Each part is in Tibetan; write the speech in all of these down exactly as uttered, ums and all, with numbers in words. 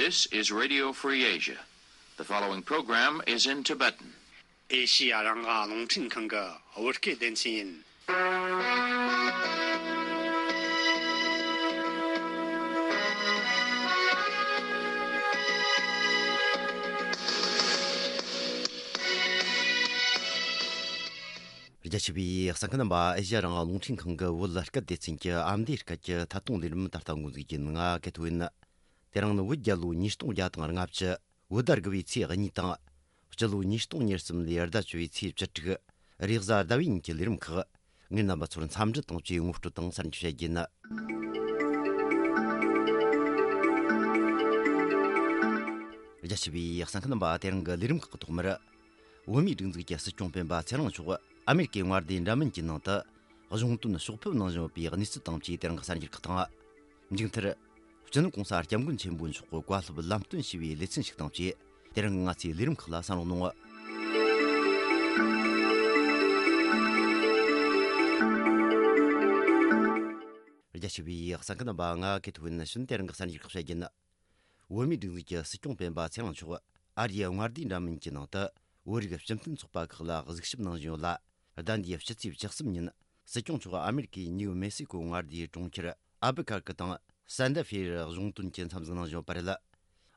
This is Radio Free Asia. The following program is in Tibetan. ཨེ་ཤི་ཡ་རང་དབང་རླུང་འཕྲིན་ཁང་གི་བོད་སྐད་སྡེ་ཚན་ཡིན། རྒྱ་ཆེ་བའི་གསན་མཁན་རྣམ་པ། ཨེ་ཤི་ཡ་རང་དབང་རླུང་འཕྲིན་ཁང་གི་བོད་སྐད་སྡེ་ཚན་གྱི་ཨ་མདོའི་སྐད་ཀྱི་ཐད་གཏོང་ལས་རིམ་ད་ལྟ་འགོ་འཛུགས་ཡིན། ང་གེ་ཐོ་ཡིན། དེ་རིང་ནི་བོད་རྒྱལ་ལོ་ཉིས་སྟོང་བརྒྱ་དང་ལྔ་བཅུ། བོད་ཟླ་དགུ་བའི་ཚེས་གཉིས་དང་། སྤྱི་ལོ་ཉིས་སྟོང་ཉེར་གསུམ་ལོའི་ཟླ་བཅུ་བའི་ཚེས་བཅུ་དྲུག་རེས་གཟའ་ཟླ་བའི་ཉིན་གྱི་ལས་རིམ་ཁག་ངས་རྣམ་པ་ཚོར་འཚམས་འདྲི་དང་བཅས་ངོ་སྤྲོད་དང་གསར་འགྱུར་བཤད་རྒྱུ་ཡིན། རྒྱ་ཆེ་བའི་གསན་མཁན་རྣམ་པ། དེ་རིང་གི་ལས་རིམ་ཁག་གི་ཐོག་མར། བོད་མིའི་སྒྲིག་འཛུགས་ཀྱི་སྲིད་སྐྱོང་སྤེན་པ་ཚེ་རིང་མཆོག་ཨ་མེ་རི་ཀའི་མངའ་སྡེ་འདྲ་མིན་གྱི་ནང་དུ་གཞུང་དོན་ཕྱོགས་ཕེབས་གནང་བཞིན་ཡོད་པའི་གནས་ཚུལ་དང་བཅས་དེ་རིང་གི་གསར་འགྱུར་ཁག་དང་། མཇུག་མཐར། སྤྱི་ནོར་༸གོང་ས་༸སྐྱབས་མགོན་ཆེན་པོ་མཆོག་གི་བཀའ་སློབ་ལམ་སྟོན་ཞུས་པའི་ལེ་ཚན་ཞིག་དང་བཅས། དེ་རིང་གི་ང་ཚོའི་ལས་རིམ་ཁག་ལ་གསན་རོགས་གནང་། རྒྱ་ཆེ་བའི་གསན་མཁན་རྣམ་པ། ང་གེ་ཐོ་ཡིན། ཕྱིན་དེ་རིང་གི་གསར་འགྱུར་ཁག་བཤད་རྒྱུ་ཡིན། བོད་མིའི་སྒྲིག་འཛུགས་ཀྱི་སྲིད་སྐྱོང་སྤེན་པ་ཚེ་རིང་མཆོག་ཨ་རིའི་མངའ་སྡེ་འདྲ་མིན་གྱི་ནང་དུ་བོད་རིགས་སྤྱི་མཐུན་ཚོགས་པ་ཁག་ལ་གཟིགས་ཞིབ་གནང་བཞིན་ཡོད་ལ། ཟླ་འདིའི་ཕྱི་ཚེས་བཅུ་གསུམ་ཉིན་སྲིད་སྐྱོང་མཆོག་ཨ་མེ་རི་ཀའི་ནིའུ་མེག་སི་ཀོ་མངའ་སྡེའི་གྲོང་ཁྱེར་ཨལ་བུ་ཁར་ཀི་དང་སན་ཏ་ཧྥེར་གཞུང་དོན་གྱི་འཚམས་གཟིགས་གནང་བཞིན་ཡོད་པ་རེད།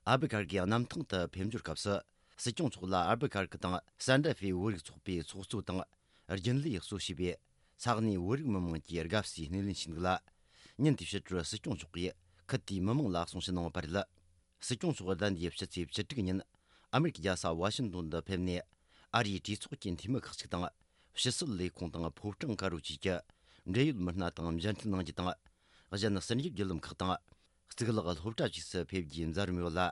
ཨལ་བུ་ཁར་ཀིའི་གནམ་ཐང་དུ་ཕེབས་འབྱོར་སྐབས་སུ། སྲིད་སྐྱོང་མཆོག་ལ་ཨལ་བུ་ཁར་ཀི་དང་སན་ཏ་ཧྥེ་བོད་རིགས་ཚོགས་པའི་ཚོགས་གཙོ་དང་། རྒྱུན་ལས་གཙོ་བྱས་པའི་ས་གནས་བོད་རིགས་མི་མང་གིས་དགའ་བསུའི་སྣེ་ལེན་བྱས་འདུག་ལ། ཉིན་དེའི་ཕྱི་དྲོར་སྲིད་སྐྱོང་མཆོག་གིས་ཁུལ་དེའི་མི་མང་ལ་གསུང་བཤད་གནང་བ་རེད། སྲིད་སྐྱོང་མཆོག་ཟླ་འདིའི་ཕྱི་ཚེས་བཅུ་དྲུག་ཉིན་ཨ་མེ་རི་ཀའི་རྒྱལ་ས་ཝ་ཤིང་ཏོན་དུ་ཕེབས་ནས། ཨ་རིའི་གྲོས་ཚོགས་ཀྱི་འཐུས་མི་ཁག་ཅིག་དང་། ཕྱི་སྲིད་ལས་ཁུངས་དང་ཕོ་བྲང་དཀར་པོ་བཅས་ཀྱི་འབྲེལ་ཡོད་མི་སྣ་དང་མཇལ་འཕྲད་གནང་རྒྱུ་དང་། གཞན་ཟུར་འཇོག་བརྒྱུད་ལམ་ཁག་དང་། གཙུག་ལག་སློབ་གྲྭ་བཅས་སུ་ཕེབས་རྒྱུའི་མཛད་རིམ་ཡོད་ལ།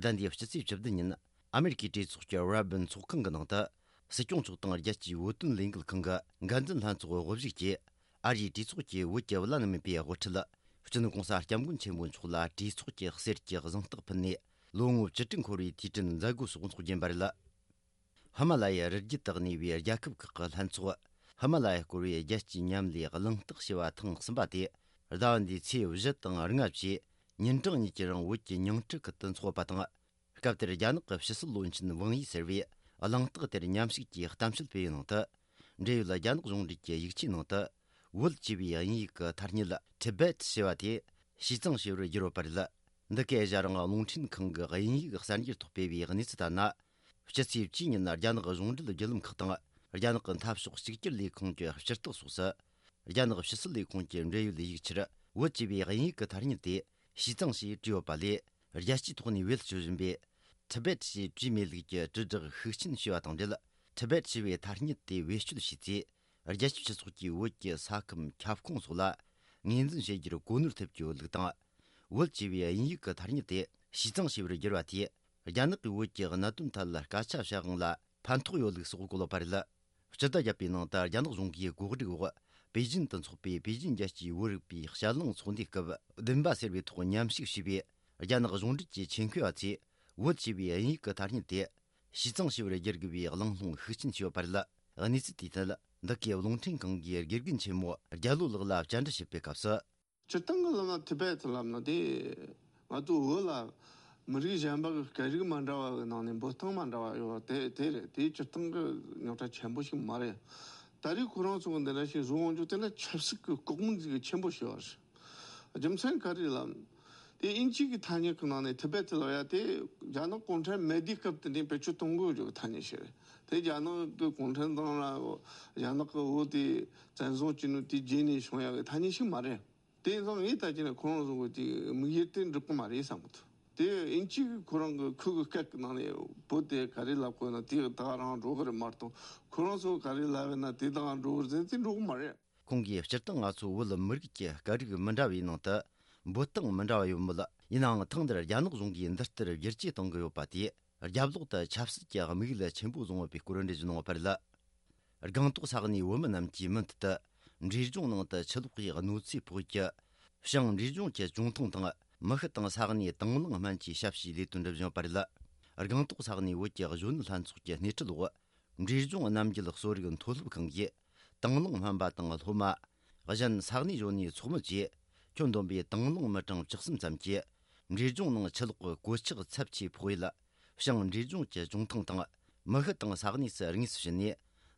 ཟླ་འདིའི་ཕྱི་ཚེས་བཅུ་བདུན་ཉིན་ཨ་མེ་རི་ཀའི་གྲོས་ཚོགས་ཀྱི་ར་སྦན་ཚོགས་ཁང་གི་ནང་དུ། སྲིད་སྐྱོང་མཆོག་དང་རྒྱལ་སྤྱིའི་བོད་དོན་ལས་འགུལ་ཁང་གི་འགན་འཛིན་ལྷན་ཚོགས་དབུ་བཞུགས་ཀྱིས། ཨ་རིའི་གྲོས་ཚོགས་ཀྱི་བོད་ཀྱི་བླ་ན་མེད་པའི་དབུ་ཁྲིད། སྤྱི་ནོར་༸གོང་ས་༸སྐྱབས་མགོན་ཆེན་པོ་མཆོག་ལ་གྲོས་ཚོགས་ཀྱི་གསེར་གྱི་གཟེངས་རྟགས་ཕུལ་ནས། ལོ་ངོ་བཅུ་དྲུག་འཁོར་བའི་དུས་དྲན་མཛད་སྒོ་སོགས་འཚོགས་རྒྱུ་ཡིན་པ་རེད། ཧི་མ་ལ་ཡའི་རི་རྒྱུད་དུ་གནས་པའི་རྒྱལ་ཁབ་ཁག་གི་ལྷན་ཚོགས། ཧི་མ་ལ་ཡ་སྐོར་བའི་རྒྱལ་སྤྱིའི་མཉམ་ལས་གླེང་སྟེགས་ཞེས་པ་ཐེངས་གསུམ་པ་དེ། ཟླ་བ་འདིའི་ཚེས་བཞི་དང་ལྔ་བཅས་ཉིན་གྲངས་གཉིས་ཀྱི་རིང་བོད་ཀྱི་ཉིང་ཁྲི་ཁུལ་དུ་འཚོགས་པ་དང་། སྐབས་དེར་རྒྱ་ནག་གི་ཕྱི་སྲིད་བློན་ཆེན་ཝང་ཡི་ཟེར་བས་གླེང་སྟེགས་དེར་མཉམ་ཞུགས་ཀྱིས་གཏམ་བཤད་སྤེལ་བའི་ནང་དུ། འབྲེལ་ཡོད་རྒྱ་ནག་གཞུང་འབྲེལ་གྱི་ཡིག་ཆའི་ནང་དུ། བོད་ཅེས་པའི་དབྱིན་ཡིག་གི་ཐ་སྙད་Tibet ཞེས་པ་དེ་ཞུས་གཙང་ཞེས་པར་བསྒྱུར་ཡོད་པ་རེད། འདི་གའི་ཨེ་ཤ་ཡ་རང་དབང་རླུང་འཕྲིན་ཁང་གི་དབྱིན་ཡིག་གསར་འགྱུར་ཐོག་སྤེལ་བའི་གནས་ཚུལ་ལྟར་ན། སྤྱི་ཚེས་བཅུའི་ཉིན་རྒྱ་ནག་གཞུང་འབྲེལ་བརྒྱུད་ལམ་ཁག་དང་། རྒྱ་ནག་གི་འཐབ་ཕྱོགས་གཅིག་གྱུར་ལས་ཁུངས་ཀྱི་སྤྱི་རྟགས་སོགས་སུ། རྒྱ་ནག་ཕྱི་སྲིད་ལས་ཁུངས་ཀྱི་འབྲེལ་ཡོད་ཡིག་ཆར་བོད་ཅེས་པའི་དབྱིན་ཡིག་གི་ཐ་སྙད་དེ་ཞུས་གཙང་ཞེས་བྲིས་ཡོད་པ་ལས། རྒྱལ་སྤྱིའི་ཐོག་ནས་བེད་སྤྱོད་བཞིན་པའི་Tibet ཞེས་བྲིས་མེད་ལུགས་ཀྱི་དྲིལ་བསྒྲགས་ཤུགས་ཆེན་བྱས་པ་དང་འབྲེལ། Tibet ཞེས་པའི་ཐ་སྙད་དེ་བེད་སྤྱོད་བྱས་ཚེ། རྒྱལ་སྤྱིའི་སྤྱི་ཚོགས་ཀྱིས་བོད་ཀྱི་ས་ཁམས་ཁྱབ་ཁོངས་སོགས་ལ་ངོས་འཛིན་བྱེད་རྒྱུར་གོ་ནོར་ཐེབས་ཀྱི་ཡོད་ལུགས་དང་། བོད་ཅེས་པའི་དབྱིན་ཡིག་གི་ཐ་སྙད་དེ་ཞུས་གཙང་ཞེས་པར་བསྒྱུར་བ་དེས། རྒྱ་ནག་གིས་བོད་ཀྱི་གནད་དོན་ཐད་ལ་སྐད་ཆ་བཤད་དབང་ལ་ཕན་ཐོགས་ཡོད་ལུགས་སོགས་གོ་ལོག་པ་རེད། སྤྱི་ཟླ་བརྒྱད་པའི་ནང་དུ་རྒྱ་ནག་གཞུང་གིས་གོ་སྒྲིག་འོག་པེ་ཅིན་དུ་འཚོགས་པའི་པེ་ཅིན་རྒྱལ་སྤྱིའི་བོད་རིག་པའི་ཞལ་ལུང་ཚོགས་འདུའི་སྐབས། བདུན་པ་ཟེར་བའི་ཐོག་མཉམ་ཞུགས་བྱས་པའི་རྒྱ་ནག་གཞུང་འབྲེལ་གྱི་ཆེད་མཁས་པ་ཚོས་བོད་ཅེས་པའི་དབྱིན་ཡིག་གི་ཐ་སྙད་དེ་ཞུས་གཙང་ཞེས་པར་བསྒྱུར་དགོས་པའི་གླེང་སློང་ཤུགས་ཆེན་བྱས་ཡོད་པ་རེད། གནས་ཚུལ་དེའི་ཐད། འདི་གའི་རླུང་འཕྲིན་ཁང་གི་དགེ་རྒན་ཆེན་མོ་རྒྱལ་ལོ་ལགས་ལ་བཅར་འདྲི་བྱེད་པའི་སྐབས་སུ། སྤྱིར་བཏང་གི་ལབ་ན་ཐི་བེད་ལབ་ན་དེ། ང་ཚོ་བོད་ལ་མི་རིགས་གཞན་པ་གི་སྐད་རིགས་མ་འདྲ་བ་གི་ནང་ནས་འབོད་སྟངས་མ་འདྲ་བ་ཡོད་པ་དེ་དེ་རེད། དེ་སྤྱིར་བཏང་གི་རྙོག་དྲ་ཆེན་པོ་ཞིག་མ་རེད། ད་རེས་ཁོ་རང་ཚོ་གི་འདི་འདྲ་ཞིག་བཟོ་འོང་རྒྱུ་དེ་ལ་ཆབ་སྲིད་ཀྱི་ལྐོག་མིན་ཟིག་གི་ཆེན་པོ་ཞིག་ཡོད་རེད། རྒྱུ་མཚན་ག་རེ་ལབ་ན། དེ་དབྱིན་ཇི་གི་ཐ་སྙད་ཀྱི་ནང་ནས་ཐི་བེད་ལབ་ཡ་དེ་རྒྱ་ནག་གུང་ཁྲན་མེད་དུས་སྐབས་དེ་ནས་བེད་སྤྱོད་གཏོང་དགོས་ཀྱི་ཐ་སྙད་ཞིག་རེད། དེ་རྒྱ་ནག་གི་གུང་ཁྲན་ཏང་ལ་རྒྱ་ནག་གི་བོད་དེ་བཙན་བཟུང་བྱས་ནས་དེ་རྗེས་ནས་བྱུང་ཡ་གི་ཐ་སྙད་ཞིག་མ་རེད། དེ་ཡིན་ཙང་ངས་ད་ཅི་ནས་ཁོ་རང་ཚོ་གི་དེ་དམིགས་ཡུལ་དེ་འགྲིག་གི་མ་རེད་བསམ་གི་འདུག་དེ་དབྱིན་ཇི་གི་ཁོ་རང་གི་ཁུ་གི་སྐད་ཀྱི་ནང་ནས་བོད་དེ་ག་རེ་ལབ་དགོས་ན་དེ་ད་ག་རང་འགྲོ་གི་རེད་མ་གཏོགས། ཁོ་རང་ཚོ་ག་རེ་ལབ་ཡོད་ན་དེ་ད་ག་འགྲོ་གི་རེད་ཟེར་དེ་འགྲོ་གི་མ་རེད། ཁོང་གིས་སྤྱིར་བཏང་ང་ཚོ་བོད་མི་རིགས་ཀྱི་སྐད་རིགས་མི་འདྲ་བའི་ནང་དུ་འབོད་སྟངས་མི་འདྲ་བ་ཡོད་མོད། ཡིན་ནའང་ཐེངས་འདིར་རྒྱ་ནག་གཞུང་གིས་འདི་ལྟར་བསྒྱུར་བཅོས་གཏོང་གི་ཡོད་པ་དེས། རྒྱབ་ལོགས་དུ་ཆབ་སྲིད་ཀྱི་དམིགས་ཡུལ་ཆེན་པོ་བཟུང་ཡོད་པའི་སྐོར་འགྲེལ་བརྗོད་གནང་བ་རེད། སྒང་ཏོག་ས་གནས་བོད་མི་རྣམས་ཀྱིས་མུ་མཐུད་དུ་འབྲས་ལྗོངས་ནང་དུ་ཆུ་ལོག་གི་གནོད་འཚེ་ཕོག་ཡུལ་གྱི་ཞིང་འབྲས་ལྗོངས་ཀྱི་ཅུང་ཐུང་དང་མི་ཤི་དང་ས་གནས་དང་བླངས་སྨན་གྱི་ཞབས་ཞུའི་ལས་དོན་སྒྲུབ་བཞིན་ཡོད་པ་རེད། སྒང་ཏོག་ས་གནས་བོད་ཀྱི་གཞོན་ནུ་ལྷན་ཚོགས་ཀྱི་སྣེ་ཁྲིད་འོག་འབྲས་ལྗོངས་རྣམ་རྒྱལ་གསོ་རིག་མཐོ་སློབ་ཁང་གིས་དང་བླངས་སྨན་པ་དང་སློབ་མ། གཞན་ས་གནས་གཞོན་ནུའི་ཚོགས་མི་བཅས་ཁྱོན་བསྡོམས་པའི་དང་བླངས་མི་གྲངས་བཅུ་གསུམ་ཙམ་གྱིས་ འབྲས་ལྗོངས་ནང་ཆུ་ལོག་གི་གོད་ཆག་ཚབས་ཆེ་ཕོག་ཡུལ། བྱང་འབྲས་ལྗོངས་ཀྱི་ལྗོངས་ཐང་དང་མི་ཤུ་དང་ས་གནས་སུ་དངོས་སུ་ཕྱིན་ནས།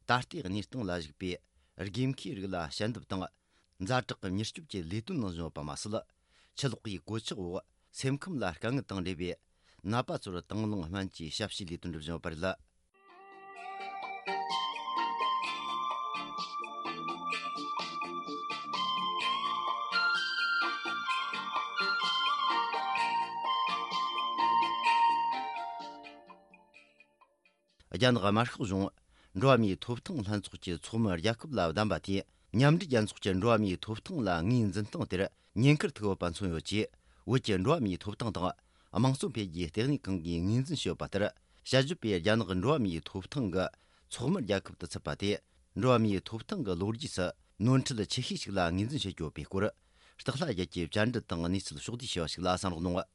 ད་ལྟའི་གནས་སྟངས་ལ་གཞིགས་པའི་དགོས་མཁོའི་རིགས་ལ་ཞལ་འདེབས་དང་། ཛ་དྲག་གི་མྱུར་སྐྱོབ་ཀྱི་ལས་དོན་གནང་བཞིན་ཡོད་པ་མ་ཟད། ཆུ་ལོག་གི་གོད་ཆག་འོག་སེམས་ཁམས་ལ་དཀའ་ངལ་དང་འབྲེལ་བའི་ནད་པ་ཚོར་དང་བླངས་སྨན་བཅོས་ཞབས་ཞུའི་ལས་དོན་སྒྲུབ་བཞིན་ཡོད་པ་རེད། རྒྱ་ནག་དམར་ཤོག་གཞུང་འགྲོ་བ་མིའི་ཐོབ་ཐང་ལྷན་ཚོགས་ཀྱི་ཚོགས་མི་རྒྱལ་ཁབ་ལ་བདམས་པ་དེས། མཉམ་འབྲེལ་རྒྱལ་ཚོགས་ཀྱི་འགྲོ་བ་མིའི་ཐོབ་ཐང་ལ་ངོས་འཛིན་སྟངས་དེར་ཉེན་ཁར་ཐུག་ཡོད་པ་མཚོན་ཡོད་ཅེས། བོད་ཀྱི་འགྲོ་བ་མིའི་ཐོབ་ཐང་དང་དམངས་གཙོ་འཕེལ་རྒྱས་ལྟེ་གནས་ཁང་གིས་ངོས་འཛིན་བྱས་ཡོད་པ་ལྟར། དཔྱད་བརྗོད་པས་རྒྱ་ནག་གི་འགྲོ་བ་མིའི་ཐོབ་ཐང་གི་ཚོགས་མི་རྒྱལ་ཁབ་ཏུ་ཚུད་པ་དེ། འགྲོ་བ་མིའི་ཐོབ་ཐང་གི་ལོ་རྒྱུས་སུ་ནོར་འཁྲུལ་ཆེ་ཤོས་ཤིག་ལ་ངོས་འཛིན་བྱེད་ཀྱི་ཡོད་པའི་སྐོར། སྟག་ལྷ་རྒྱལ་གྱིས་བཅར་འདྲི་དང་གནས་ཚུལ་ཕྱོགས་བསྡུས་བྱས་པ་ཞིག་ལ་གསན་རོགས་གནང་།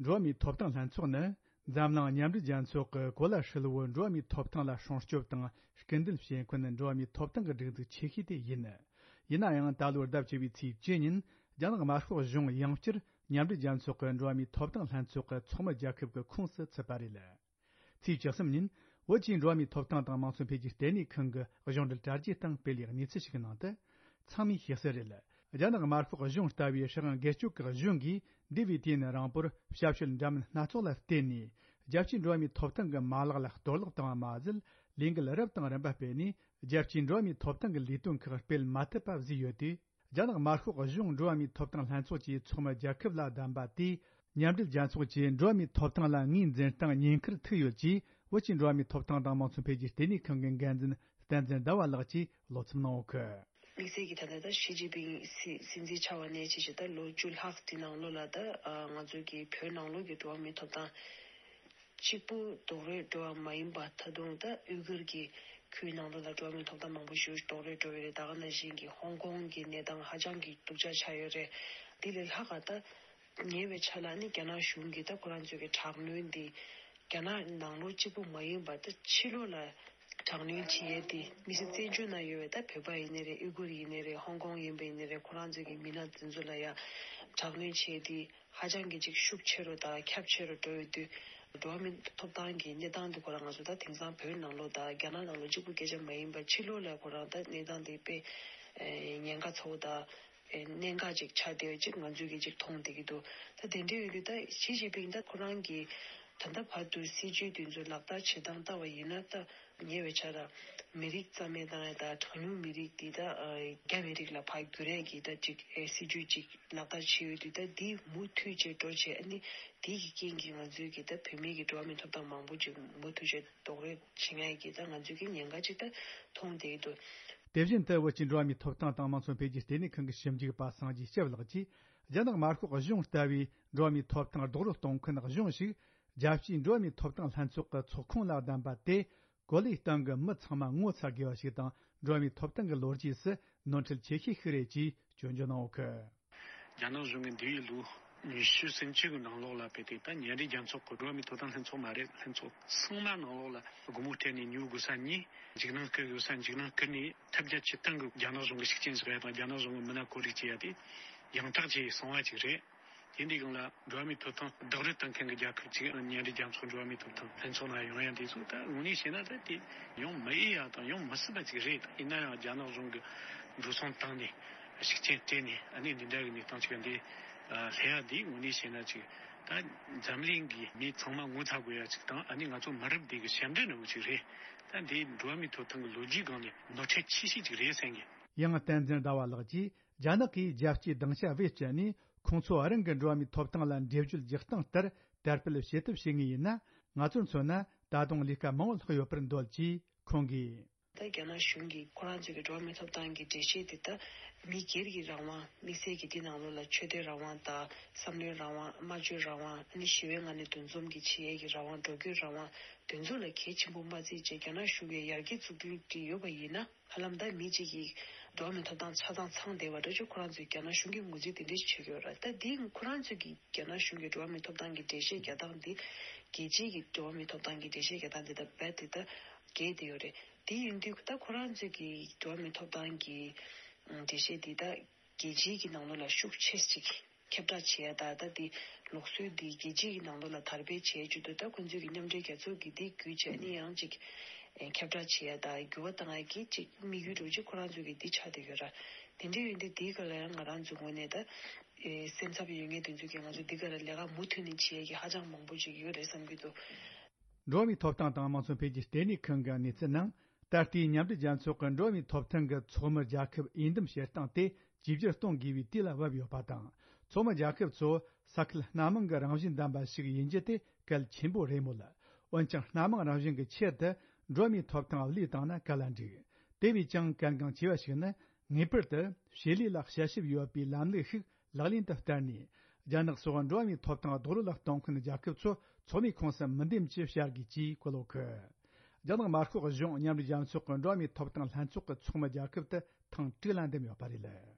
འགྲོ་བ་མིའི་ཐོབ་ཐང་ལྷན་ཚོགས་ནི། འཛམ་གླིང་མཉམ་འབྲེལ་རྒྱལ་ཚོགས་ཀྱི་གོ་ལ་ཧྲིལ་བོའི་འགྲོ་བ་མིའི་ཐོབ་ཐང་ལ་སྲུང་སྐྱོབ་དང་སྐུལ་འདེད་བྱེད་མཁན་འགྲོ་བ་མིའི་ཐོབ་ཐང་གི་སྒྲིག་འཛུགས་ཆེ་ཤོས་དེ་ཡིན། ཡིན་ན་ཡང་ད་ལོའི་ཟླ་བཅུ་བའི་ཚེས་བཅུ་ཉིན་རྒྱ་ནག་དམར་ཤོག་གཞུང་ཡང་བསྐྱར་མཉམ་འབྲེལ་རྒྱལ་ཚོགས་ཀྱི་འགྲོ་བ་མིའི་ཐོབ་ཐང་ལྷན་ཚོགས་ཀྱི་ཚོགས་མི་རྒྱལ་ཁབ་ཀྱི་ཁོངས་སུ་ཚུད་པ་རེད། ཚེས་བཅུ་གསུམ་ཉིན་བོད་ཀྱི་འགྲོ་བ་མིའི་ཐོབ་ཐང་དང་དམངས་གཙོ་འཕེལ་རྒྱས་ལྟེ་གནས་ཁང་གི་གཞུང་འབྲེལ་དྲ་རྒྱའི་སྟེང་སྤེལ་བའི་གནས་ཚུལ་ཞིག་གི་ནང་དུ། ཚང་མས་ཤེས་གསལ་རེད། རྒྱ་ནག་དམར་ཤོག་གཞུང་ལྟ་བུའི་སྲིད་དབང་སྒེར་གཅོད་ཀྱི་གཞུང་གིས་འདས་པའི་དུས་ཡུན་རིང་པོར་ཞབས་ཞུ་འདྲ་མིན་སྣ་ཚོགས་ལ་བརྟེན་ནས། རྒྱལ་སྤྱིའི་འགྲོ་བ་མིའི་ཐོབ་ཐང་གི་མ་ལག་ལ་གཏོར་བརླག་བཏང་བ་མ་ཟད། ལས་འགུལ་རབ་དང་རིམ་པ་སྤེལ་ནས། རྒྱལ་སྤྱིའི་འགྲོ་བ་མིའི་ཐོབ་ཐང་གི་ལས་དོན་ཁག་སྤེལ་མ་ཐུབ་པ་བཟོས་ཡོད་དུས། རྒྱ་ནག་དམར་ཤོག་གཞུང་འགྲོ་བ་མིའི་ཐོབ་ཐང་ལྷན་ཚོགས་ཀྱི་ཚོགས་མི་རྒྱལ་ཁབ་ལ་བདམས་པ་དེས། མཉམ་འབྲེལ་རྒྱལ་ཚོགས་ཀྱིས་འགྲོ་བ་མིའི་ཐོབ་ཐང་ལ་ངོས་འཛིན་སྟངས་ཉེན་ཁར་ཐུག་ཡོད་ཅེས། བོད་ཀྱི་འགྲོ་བ་མིའི་ཐོབ་ཐང་དང་དམངས་གཙོ་འཕེལ་རྒྱས་ལྟེ་གནས་ཁང་གི་འགན་འཛིན་བསྟན་འཛིན་ཟླ་བ་ལགས་ཀྱིས་བློ་འཚབ་གནང་ཡོད་གི། དམིགས་བསལ་གྱིས་ད་ལྟ་ད་ཞི་ཅིན་ཕིང་སྲིད་སྲིད་འཛིན་ཆགས་པ་ནས་བྱས་བྱས་ད་ལོ་བཅུ་ལྷག་དེ་ནང་ལོགས་ལ་ད་ང་ཚོ་གི་བོད་ནང་ལོགས་ཀྱི་འགྲོ་བ་མིའི་ཐོབ་ཐང་གཅིག་པུ་རྡོག་རོལ་འགྲོ་བ་མ་ཡིན་པ། ད་དུང་ད་ཡུ་གུར་གྱི་ཁུལ་ནང་ལོགས་ལ་འགྲོ་བ་མིའི་ཐོབ་ཐང་མང་པོ་ཞིག་རྡོག་རོལ་འགྲོ་བའི་རེད། ད་ག་ནང་བཞིན་གྱི་ཧོང་ཀོང་གི་གནས་སྟངས་ཧ་ཅང་གི་སྡུག་ཅག་ཆགས་ཡོད་རེད། དེ་ལས་ལྷག་ག་ད་ཉེ་བའི་ཆར་ལ་ནི་རྒྱ་ནག་གཞུང་གིས་ད་ཁོ་རང་ཚོའི་གི་དྲག་གནོན་འདི་རྒྱ་ནག་ནང་ལོགས་གཅིག་པུ་མ་ཡིན་པར་ད་ཕྱི་ལོགས་ལ་དྲག་གནོན་བྱེད་ཡས་དེ་མི་སེར་བཙན་བྱོལ་ནང་ཡོད་པའི་ད་བོད་པ་ཡིན་ནའི་རེད། ཨུ་གུར་ཡིན་ནའི་རེད། ཧོང་ཀོང་ཡིན་པ་ཡིན་ནའི་རེད། ཁོ་རང་ཚོའི་གི་མི་སྣ་དེ་ཚོ་ལ་ཡ་དྲག་གནོན་བྱེད་ཡས་དེ་ཧ་ཅང་གི་ཅིག་ཤུགས་ཆེ་རུ་དང་ཁྱབ་ཆེ་རུ་འགྲོ་ཡོད་དུས། འགྲོ་བ་མིའི་ཐོབ་ཐང་གི་གནས་སྟངས་དེ་ཁོ་རང་ང་ཚོ་ད་དེང་སང་བོད་ནང་ལོགས་དང་རྒྱ་ནག་ནང་ལོགས་གཅིག་པུ་སྐད་ཆ་མ་ཡིན་པར་ཕྱི་ལོགས་ལ་ཁོ་རང་ད་གནས་སྟངས་དེ་དཔེ་ཉེན་ཁ་ཚ་བོ་དང་གནད་འགག་ཅིག་ཆགས་བསྡད་ཡོད་ཅིག་ང་ཚོས་གི་ཅིག་མཐོང་བསྡད་ཀྱི་འདུག་ད་དེ་འདྲ་ཡོད་དུས་ད་ཞི་ཅིན་ཕིང་ད་ཁོ་རང་གི་ད་ལྟ་བར་དུ་སྲིད་ཇུས་དེ་ཚོ་ལག་བསྟར་བྱེད་སྟངས་ལྟ་བ་ཡིན་ན་ད། ཉེ་བའི་ཆར་ལ་མི་རིགས་རྩ་མེད་བཏང་ཡ་དང་གྲངས་ཉུང་མི་རིགས་འདི་དག་རྒྱ་མི་རིགས་ལ་ཕར་བསྒྱུར་ཡ་གི་ད་ཅིག་སྲིད་ཇུས་ཅིག་ལག་བསྟར་བྱས་ཡོད་དུས། ད་འདི་མུ་མཐུད་བྱས་འགྲོ་བྱས། ཨ་ནི་འདི་གི་རྐྱེན་གྱིས་ང་ཚོའི་གི་ད་བོད་མིའི་གི་འགྲོ་བ་མིའི་ཐོབ་ཐང་མང་པོ་ཅིག་མུ་མཐུད་བྱས་རྡོག་རོལ་བྱེད་ཡ་གི་ད་ང་ཚོའི་གི་ཉེན་ཁ་ཅིག་ད་མཐོང་བསྡད་ཀྱི་འདུག་དེ་བཞིན་དུ་བོད་ཀྱི་འགྲོ་བ་མིའི་ཐོབ་ཐང་དང་དམངས་གཙོ་འཕེལ་རྒྱས་ལྟེ་གནས་ཁང་གི་ཞིབ་འཇུག་པ་སངས་རྒྱས་སྐྱབས་ལགས་ཀྱིས། རྒྱ་ནག་དམར་ཤོག་གཞུང་ལྟ་བུའི་འགྲོ་བ་མིའི་ཐོབ་ཐང་རྡོག་རོལ་གཏོང་མཁན་གཞུང་ཞིག་རྒྱལ་སྤྱིའི་འགྲོ་བ་མིའི་ཐོབ་ཐང་ལྷན་ཚོགས་ཀྱི་ཚོགས་ཁོངས་ལ་བདམས་པ་དེ། གོ་ལའི་སྟེང་གི་མི་ཚང་མ་ངོ་ཚ་དགོས་པ་ཞིག་དང་། འགྲོ་བ་མིའི་ཐོབ་ཐང་གི་ལོ་རྒྱུས་སུ་ནོར་འཁྲུལ་ཆེ་ཤོས་ཤིག་རེད་ཅེས་སྐྱོན་བརྗོད་གནང་ཡོད་གི། རྒྱ་ནག་གཞུང་གིས་འདས་པའི་ལོ་ཉི་ཤུ་ཟིན་བཅུ་གི་ནང་ལོགས་ལ་དཔེ་དེ་ད་མཉམ་འབྲེལ་རྒྱལ་ཚོགས་ཀྱི་འགྲོ་བ་མིའི་ཐོབ་ཐང་ལྷན་ཚོགས་མ་རེད། ལྷན་ཚོགས་ཚང་མ་ནང་ལོགས་ལ་སྒོ་མོ་སྤྲད་ནས་ཉོ་དགོས་ས་ཉོས། འཇིགས་སྣང་སྐུལ་དགོས་ས་འཇིགས་སྣང་སྐུལ་ནས་ཐབས་བརྒྱ་ཇུས་སྟོང་གིས་རྒྱ་ནག་གཞུང་གི་ཤུགས་རྐྱེན་བཟོ་ཡ་དང་རྒྱ་ནག་གཞུང་གི་མི་སྣ་བཀོད་སྒྲིག་བྱེད་ཡ་དེ་ཡང་དག་བྱས་སོང་བ་ཅིག་རེད། དེ་འདྲའི་སྒང་ལ་འགྲོ་བ་མིའི་ཐོབ་ཐང་རྡོག་རོལ་གཏོང་མཁན་གྱི་རྒྱལ་ཁབ་ཅིག་མཉམ་འབྲེལ་རྒྱལ་ཚོགས་འགྲོ་བ་མིའི་ཐོབ་ཐང་ལྷན་ཚོགས་ནང་ཡོང་ཡ་འདི་ཚོ་ད་དངོས་གནས་བཤད་ན་ད་དེ་ཡོང་མི་ཨེ་ཡ་དང་ཡོང་མི་སྲིད་པ་ཅིག་རེད། ཡིན་ན་ཡང་རྒྱ་ནག་གཞུང་གི་འགྲོ་སོང་བཏང་ནས་ཤུགས་རྐྱེན་སྤྲད་ནས་ཨ་ནི་འདི་འདྲ་གི་གནས་སྟངས་ཅིག་འདི་སླེབས་ཡ་འདི་དངོས་གནས་བཤད་ན་ཅིག་ད་འཛམ་གླིང་གི་མི་ཚང་མ་ངོ་ཚ་དགོས་ཡ་ཅིག་དང་། ཨ་ནི་ང་ཚོ་མི་རབས་འདི་གི་ཞབས་འདྲེན་འདྲ་བོ་ཅིག་རེད། ད་འདི་འགྲོ་བ་མིའི་ཐོབ་ཐང་གི་ལོ་རྒྱུས་སྒང་ནས་ནོར་འཁྲུལ་ཆེ་ཤོས་ཅིག་རེད་བསམ་གི། ཡང་བསྟན་འཛིན་ཟླ་བ་ལགས་ཀྱིས། རྒྱ་ནག་གིས་རྒྱལ་སྤྱིའི་སྡིངས་ཆ་བེད་སྤྱད་ནས་ཁོང་ཚོ་རང་གི་འགྲོ་བ་མིའི་ཐོབ་ཐང་ལ་འགྲེལ་བརྗོད་རྒྱག་སྟངས་ལྟར་དར་སྤེལ་བྱེད་ཐབས་བྱེད་ངེས་ཡིན་ན། ང་ཚོར་མཚོན་ན་ད་དུང་ལས་ཀ་མང་བོ་ལྷག་ཡོད་པར་འདོད་ཅེས་ཁོང་གིས། ད་རྒྱ་ནག་གཞུང་གིས་ཁོ་རང་ཚོའི་གི་འགྲོ་བ་མིའི་ཐོབ་ཐང་གི་འགྲེལ་བཤད་དེ་ད་མི་སྒེར་གྱི་རང་དབང་། དམིགས་བསལ་གྱིས་འདི་ནང་ལོགས་ལ་ཆོས་དད་རང་དབང་དང་བསམ་བློའི་རང་དབང་། སྨྲ་བརྗོད་རང་དབང་། ཨ་ནི་ཞི་བའི་ངང་ནས་འདུ་འཛོམས་ཀྱི་བྱེད་ཡས་ཀྱི་རང་དབང་། འགྲོ་སྐྱོད་རང་དབང་། དེ་ཚོ་ལ་གལ་ཆེན་པོ་མ་བརྩིས་བྱས་རྒྱ་ནག་གཞུང་གིས་ཡར་རྒྱས་ཚུགས་རྒྱུ་དེ་ཡོད་པ་ཡིན་ན། ཧ་ལམ་ད་མི་གཅིག་གིས་འགྲོ་བ་མིའི་ཐོབ་ཐང་ཆ་ཚང་ཚང་བསྡད་པ་འདྲ་ཅིག་ཁོ་རང་ཚོས་རྒྱ་ནག་གཞུང་གིས་ངོས་འཛིན་དེ་འདྲ་ཞིག་བྱེད་ཀྱི་ཡོད་རེད། ད་འདི་ཁོ་རང་ཚོས་ཀྱིས་རྒྱ་ནག་གཞུང་གིས་འགྲོ་བ་མིའི་ཐོབ་ཐང་གི་འགྲེལ་བཤད་རྒྱག་སྟངས་འདི། རྒྱལ་སྤྱིའི་གི་འགྲོ་བ་མིའི་ཐོབ་ཐང་གི་འགྲེལ་བཤད་རྒྱག་སྟངས་འདི་ད་རྦད་དེ་ད་འགལ་བསྡད་ཡོད་རེད། དེ་ཡིན་དུས་ད་ཁོ་རང་ཚོས་ཀྱིས་འགྲོ་བ་མིའི་ཐོབ་ཐང་གི་འགྲེལ་བཤད་འདི་ད་རྒྱལ་སྤྱིའི་གི་ནང་ལོགས་ལ་ཤུགས་ཆེ་ཅིག་ ཁྱབ་བསྒྲགས་བྱེད་ཡ་དང་། ད་འདི་ལུགས་སྲོལ་འདི་རྒྱལ་སྤྱི་ཡི་ནང་ལོགས་ལ་དར་སྤེལ་བྱེད་རྒྱུ་དང་། ད་ཁོང་ཚོས་ཀྱི་མཉམ་འབྲེལ་རྒྱལ་ཚོགས་ཀྱི་འདི་བརྒྱུད་བྱས་ནས་ཡང་ཅིག་ཨེ་ཁྱབ་བསྒྲགས་བྱེད་ཡ་དང་འགྱུར་བ་བཏང་ཡ་གི་ཅིག་དམིགས་ཡུལ་འདྲ་བོ་ཅིག་ཁོ་རང་ཚོ་གི་འདི་ཆགས་བསྡད་ཡོད་ར། དེ་འདྲ་ཡོད་དུས་འདིའི་སྐོར་ལ་ཡང་ང་རང་ཚོའི་ངོས་ནས་ད་ཨེ་སེམས་འཚབ་ཡོད་མཁན་དེ་ཚོ་གིས་ང་ཚོ་འདི་ག་ར་ལས་ཀ་མུ་མཐུད་ནས་བྱེད་ཡ་གི་ཧ་ཅང་མང་པོ་ཅིག་ཡོད་རེད་བསམ་གྱི་འདུག་འགྲོ་བ་མིའི་ཐོབ་ཐང་དང་དམངས་གཙོ་འཕེལ་རྒྱས་ལྟེ་གནས་ཁང་གི་གནས་ཚུལ་ནང་། ད་ལྟའི་མཉམ་འབྲེལ་རྒྱལ་ཚོགས་ཀྱི་འགྲོ་བ་མིའི་ཐོབ་ཐང་གི་ཚོགས་མི་རྒྱལ་ཁབ་འོས་འདེམས་བྱེད་སྟངས་དེ་བཅོས་བསྒྱུར་གཏོང་དགོས་པའི་དུས་ལ་བབ་ཡོད་པ་དང་། ཚོགས་མི་རྒྱལ་ཁབ་ཚོ་ས་ཁུལ་སྣ་མང་གི་རང་བཞིན་ལྡན་པ་ཞིག་ཡིན་རྒྱུ་དེ་གལ་ཆེན་པོ་རེད་མོད། འོན་ཀྱང་། སྣ་མང་རང་བཞིན་གྱི་ཆེད་དུ་འགྲོ་བ་མིའི་ཐོབ་ཐང་བློས་བཏང་ན་ག་ལ་འགྲིག་དེ་བས་ཀྱང་གལ་འགངས་ཆེ་བ་ཞིག་ནི། ངེས་པར་དུ་བྱེད་ལས་ལ་དཔྱད་ཞིབ་ཡོད་པའི་ལམ་ལུགས་ཤིག་ལག་ལེན་དུ་བསྟར་ནས། རྒྱ་ནག་སོགས་འགྲོ་བ་མིའི་ཐོབ་ཐང་རྡོག་རོལ་ལ་གཏོང་མཁན་རྒྱལ་ཁབ་ཚོ་ཚོགས་མིའི་ཁོངས་སུ་མི་འདེམས་ཅེས་བྱ་དགོས་ཅེས་བཀོད་ཡོད་གི། རྒྱ་ནག་དམར་ཤོག་གཞུང་མཉམ་འབྲེལ་རྒྱལ་ཚོགས་ཀྱི་འགྲོ་བ་མིའི་ཐོབ་ཐང་ལྷན་ཚོགས་ཀྱི་ཚོགས་མི་རྒྱལ་ཁབ་དེ་ཐེངས་དྲུག་ལ་འདེམས་ཡོད་པ་རེད།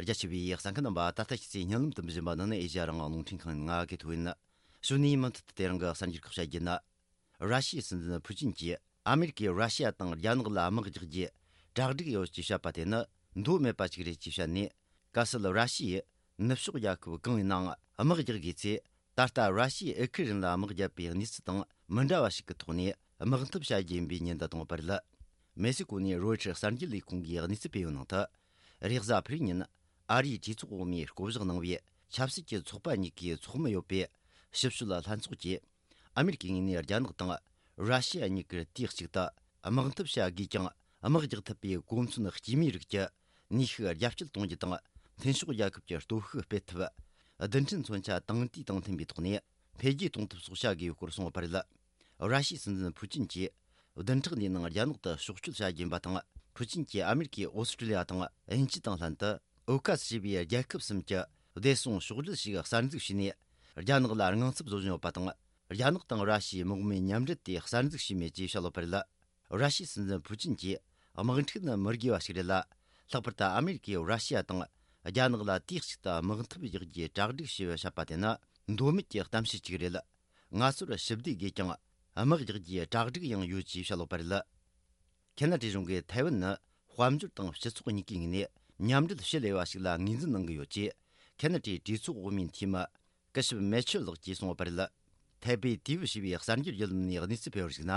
རྒྱ་ཆེ་བའི་གསན་མཁན་རྣམ་པ། ད་ལྟ་ཁྱེད་ཚོས་སྙན་ལམ་དུ་འབུལ་བཞིན་པ་ནི་ཨེ་ཤ་ཡ་རང་དབང་རླུང་འཕྲིན་ཁང་ཡིན། ང་གི་ཐོ་ཡིན། གཞུག་ནས་མུ་མཐུད་དུ་དེ་རིང་གི་གསར་འགྱུར་ཁག་བཤད་རྒྱུ་ན། ར་ཤི་ཡའི་སྲིད་འཛིན་ཕུ་ཅིན་གྱིས། ཨ་མེ་རི་ཀས་ར་ཤི་ཡ་དང་རྒྱ་ནག་ལ་དམག་རྒྱག་རྒྱུའི་གྲ་སྒྲིག་ཡོད་ཅེས་བཤད་པ་དེ་ནི་མདོ་མེད་པ་ཞིག་རེད་ཅེས་བཤད་ནས། གལ་སྲིད་ར་ཤི་ཡས་ནུབ་ཕྱོགས་རྒྱལ་ཁབ་གང་ཡིན་ནའང་དམག་རྒྱག་དགོས་ཚེ། ད་ལྟ་ར་ཤི་ཡས་ཨུ་ཁུ་རེན་ལ་དམག་བརྒྱབ་པའི་གནས་ཚུལ་དང་མི་འདྲ་བ་ཞིག་གི་ཐོག་ནས་དམག་འཐབ་བྱ་རྒྱུ་ཡིན་པའི་ཉེན་བརྡ་བཏང་ཡོད་པ་རེད། མེག་སི་ཀོ་ནས་རོའི་ཊར་གསར་འགྱུར་ལས་ཁུངས་ཀྱིས་གནས་ཚུལ་སྤེལ་བའི་ནང་དུ། རེས་གཟའ་ཕུར་བུའི་ཉིན་ཨ་རིའི་གྲོས་ཚོགས་འོག་མའི་བསྐོ་གཞག་གནང་བའི་ཆབ་སྲིད་ཀྱི་ཚོགས་པ་གཉིས་ཀའི་ཚོགས་མི་ཡོད་པའི་ཞིབ་དཔྱོད་ལྷན་ཚོགས་ཀྱིས། ཨ་མེ་རི་ཀའི་ངོས་ནས་རྒྱ་ནག་དང་ར་ཤི་ཡ་གཉིས་ཀར་དུས་གཅིག་ཏུ་དམག་འཐབ་བྱ་དགོས་ཀྱང་། དམག་རྒྱག་ཐུབ་པའི་གོ་མཚོན་སྐྱེ་དམན་རིགས་ཀྱི་ནུས་ཤུགས་རྒྱ་སྐྱེད་གཏོང་རྒྱུ་དང་། མཐུན་ཕྱོགས་རྒྱལ་ཁབ་ཀྱི་སྟོབས་ཤུགས་སྤེལ་ཐུབ། རྡུལ་ཕྲན་མཚོན་ཆ་དང་དུས་དང་མཐུན་པའི་ཐོག་ནས་འཕེལ་རྒྱས་གཏོང་ཐབས་སོགས་བྱ་དགོས་སྐོར་གསུངས་ཡོད་པ་རེད། ར་ཤི་ཡའི་སྲིད་འཛིན་ཕུ་ཅིན་གྱིས་བདུན་ཕྲག་འདིའི་ནང་རྒྱ་ནག་ཏུ་ཕྱོགས་བསྐྱོད་བྱ་རྒྱུ་ཡིན་པ་དང་། ཕུ་ཅིན་གྱིས་ཨ་མེ་རི་ཀས་ཨོ་སི་ཀྲི་ལི་ཡ་དང་དབྱིན་ཇི་དང་ལྷན་དུ། ཨོ་ཁ་སི་ཞེས་པའི་རྒྱལ་ཁབ་གསུམ་གྱི་བདེ་སྲུང་ཕྱོགས་སྒྲིག་ཞིག་གསར་འཛུགས་བྱས་ནས། རྒྱ་ནག་ལ་དངངས་འཚབ་བཟོ་བཞིན་ཡོད་པ་དང་། རྒྱ་ནག་དང་ར་ཤི་ཡས་དམག་མིའི་མཉམ་འབྲེལ་དེ་གསར་འཛུགས་བྱས་མེད་ཅེས་བཤད་ཡོད་པ་རེད། ར་ཤི་ཡའི་སྲིད་འཛིན་ཕུ་ཅིན་གྱིས། དམག་འཁྲུག་ནི་མི་དགོས་པ་ཞིག་རེད་ལ། ལྷག་པར་དུ་ཨ་མེ་རི་ཀས་ར་ཤི་ཡ་དང་རྒྱ་ནག་ལ་དུས་གཅིག་ཏུ་དམག་འཐབ་རྒྱག་རྒྱུའི་གྲ་སྒྲིག་ཞེས་བཤད་པ་དེ་ནི་མདོ་མེད་ཀྱི་གཏམ་བཤད་ཅིག་རེད། ང་ཚོར་ཞི་བདེ་དགོས་ཀྱང་། དམག་རྒྱག་རྒྱུའི་གྲ་སྒྲིག་ཡང་ཡོད་ཅེས་བཤད་ཡོད་པ་རེད། ཁེ་ན་ཌའི་གཞུང་གིས་ཐའེ་ཝན་ནི་དཔལ་འབྱོར་དང་སྤྱི་ཚོགས་གཉིས་ཀའི་ངོས་ནས་མཉམ་འབྲེལ་ཞི་ལས་པ་ཞིག་ལ་ངོས་འཛིན་གནང་གི་ཡོད་ཅེས། ཁེ་ན་ཌའི་གྲོས་ཚོགས་འོག་མའི་འཐུས་མི་སྐུ་ཞབས་མེ་ཆལ་ལགས་ཀྱིས་གསུངས་ཡོད་པ་རེད། ཐའེ་པེ་ཏི་ཝི་ཞེས་པའི་གསར་འགྱུར་བརྒྱུད་ལམ་ནས་གནས་ཚུལ་སྤེལ་བར་གཞིགས་ན།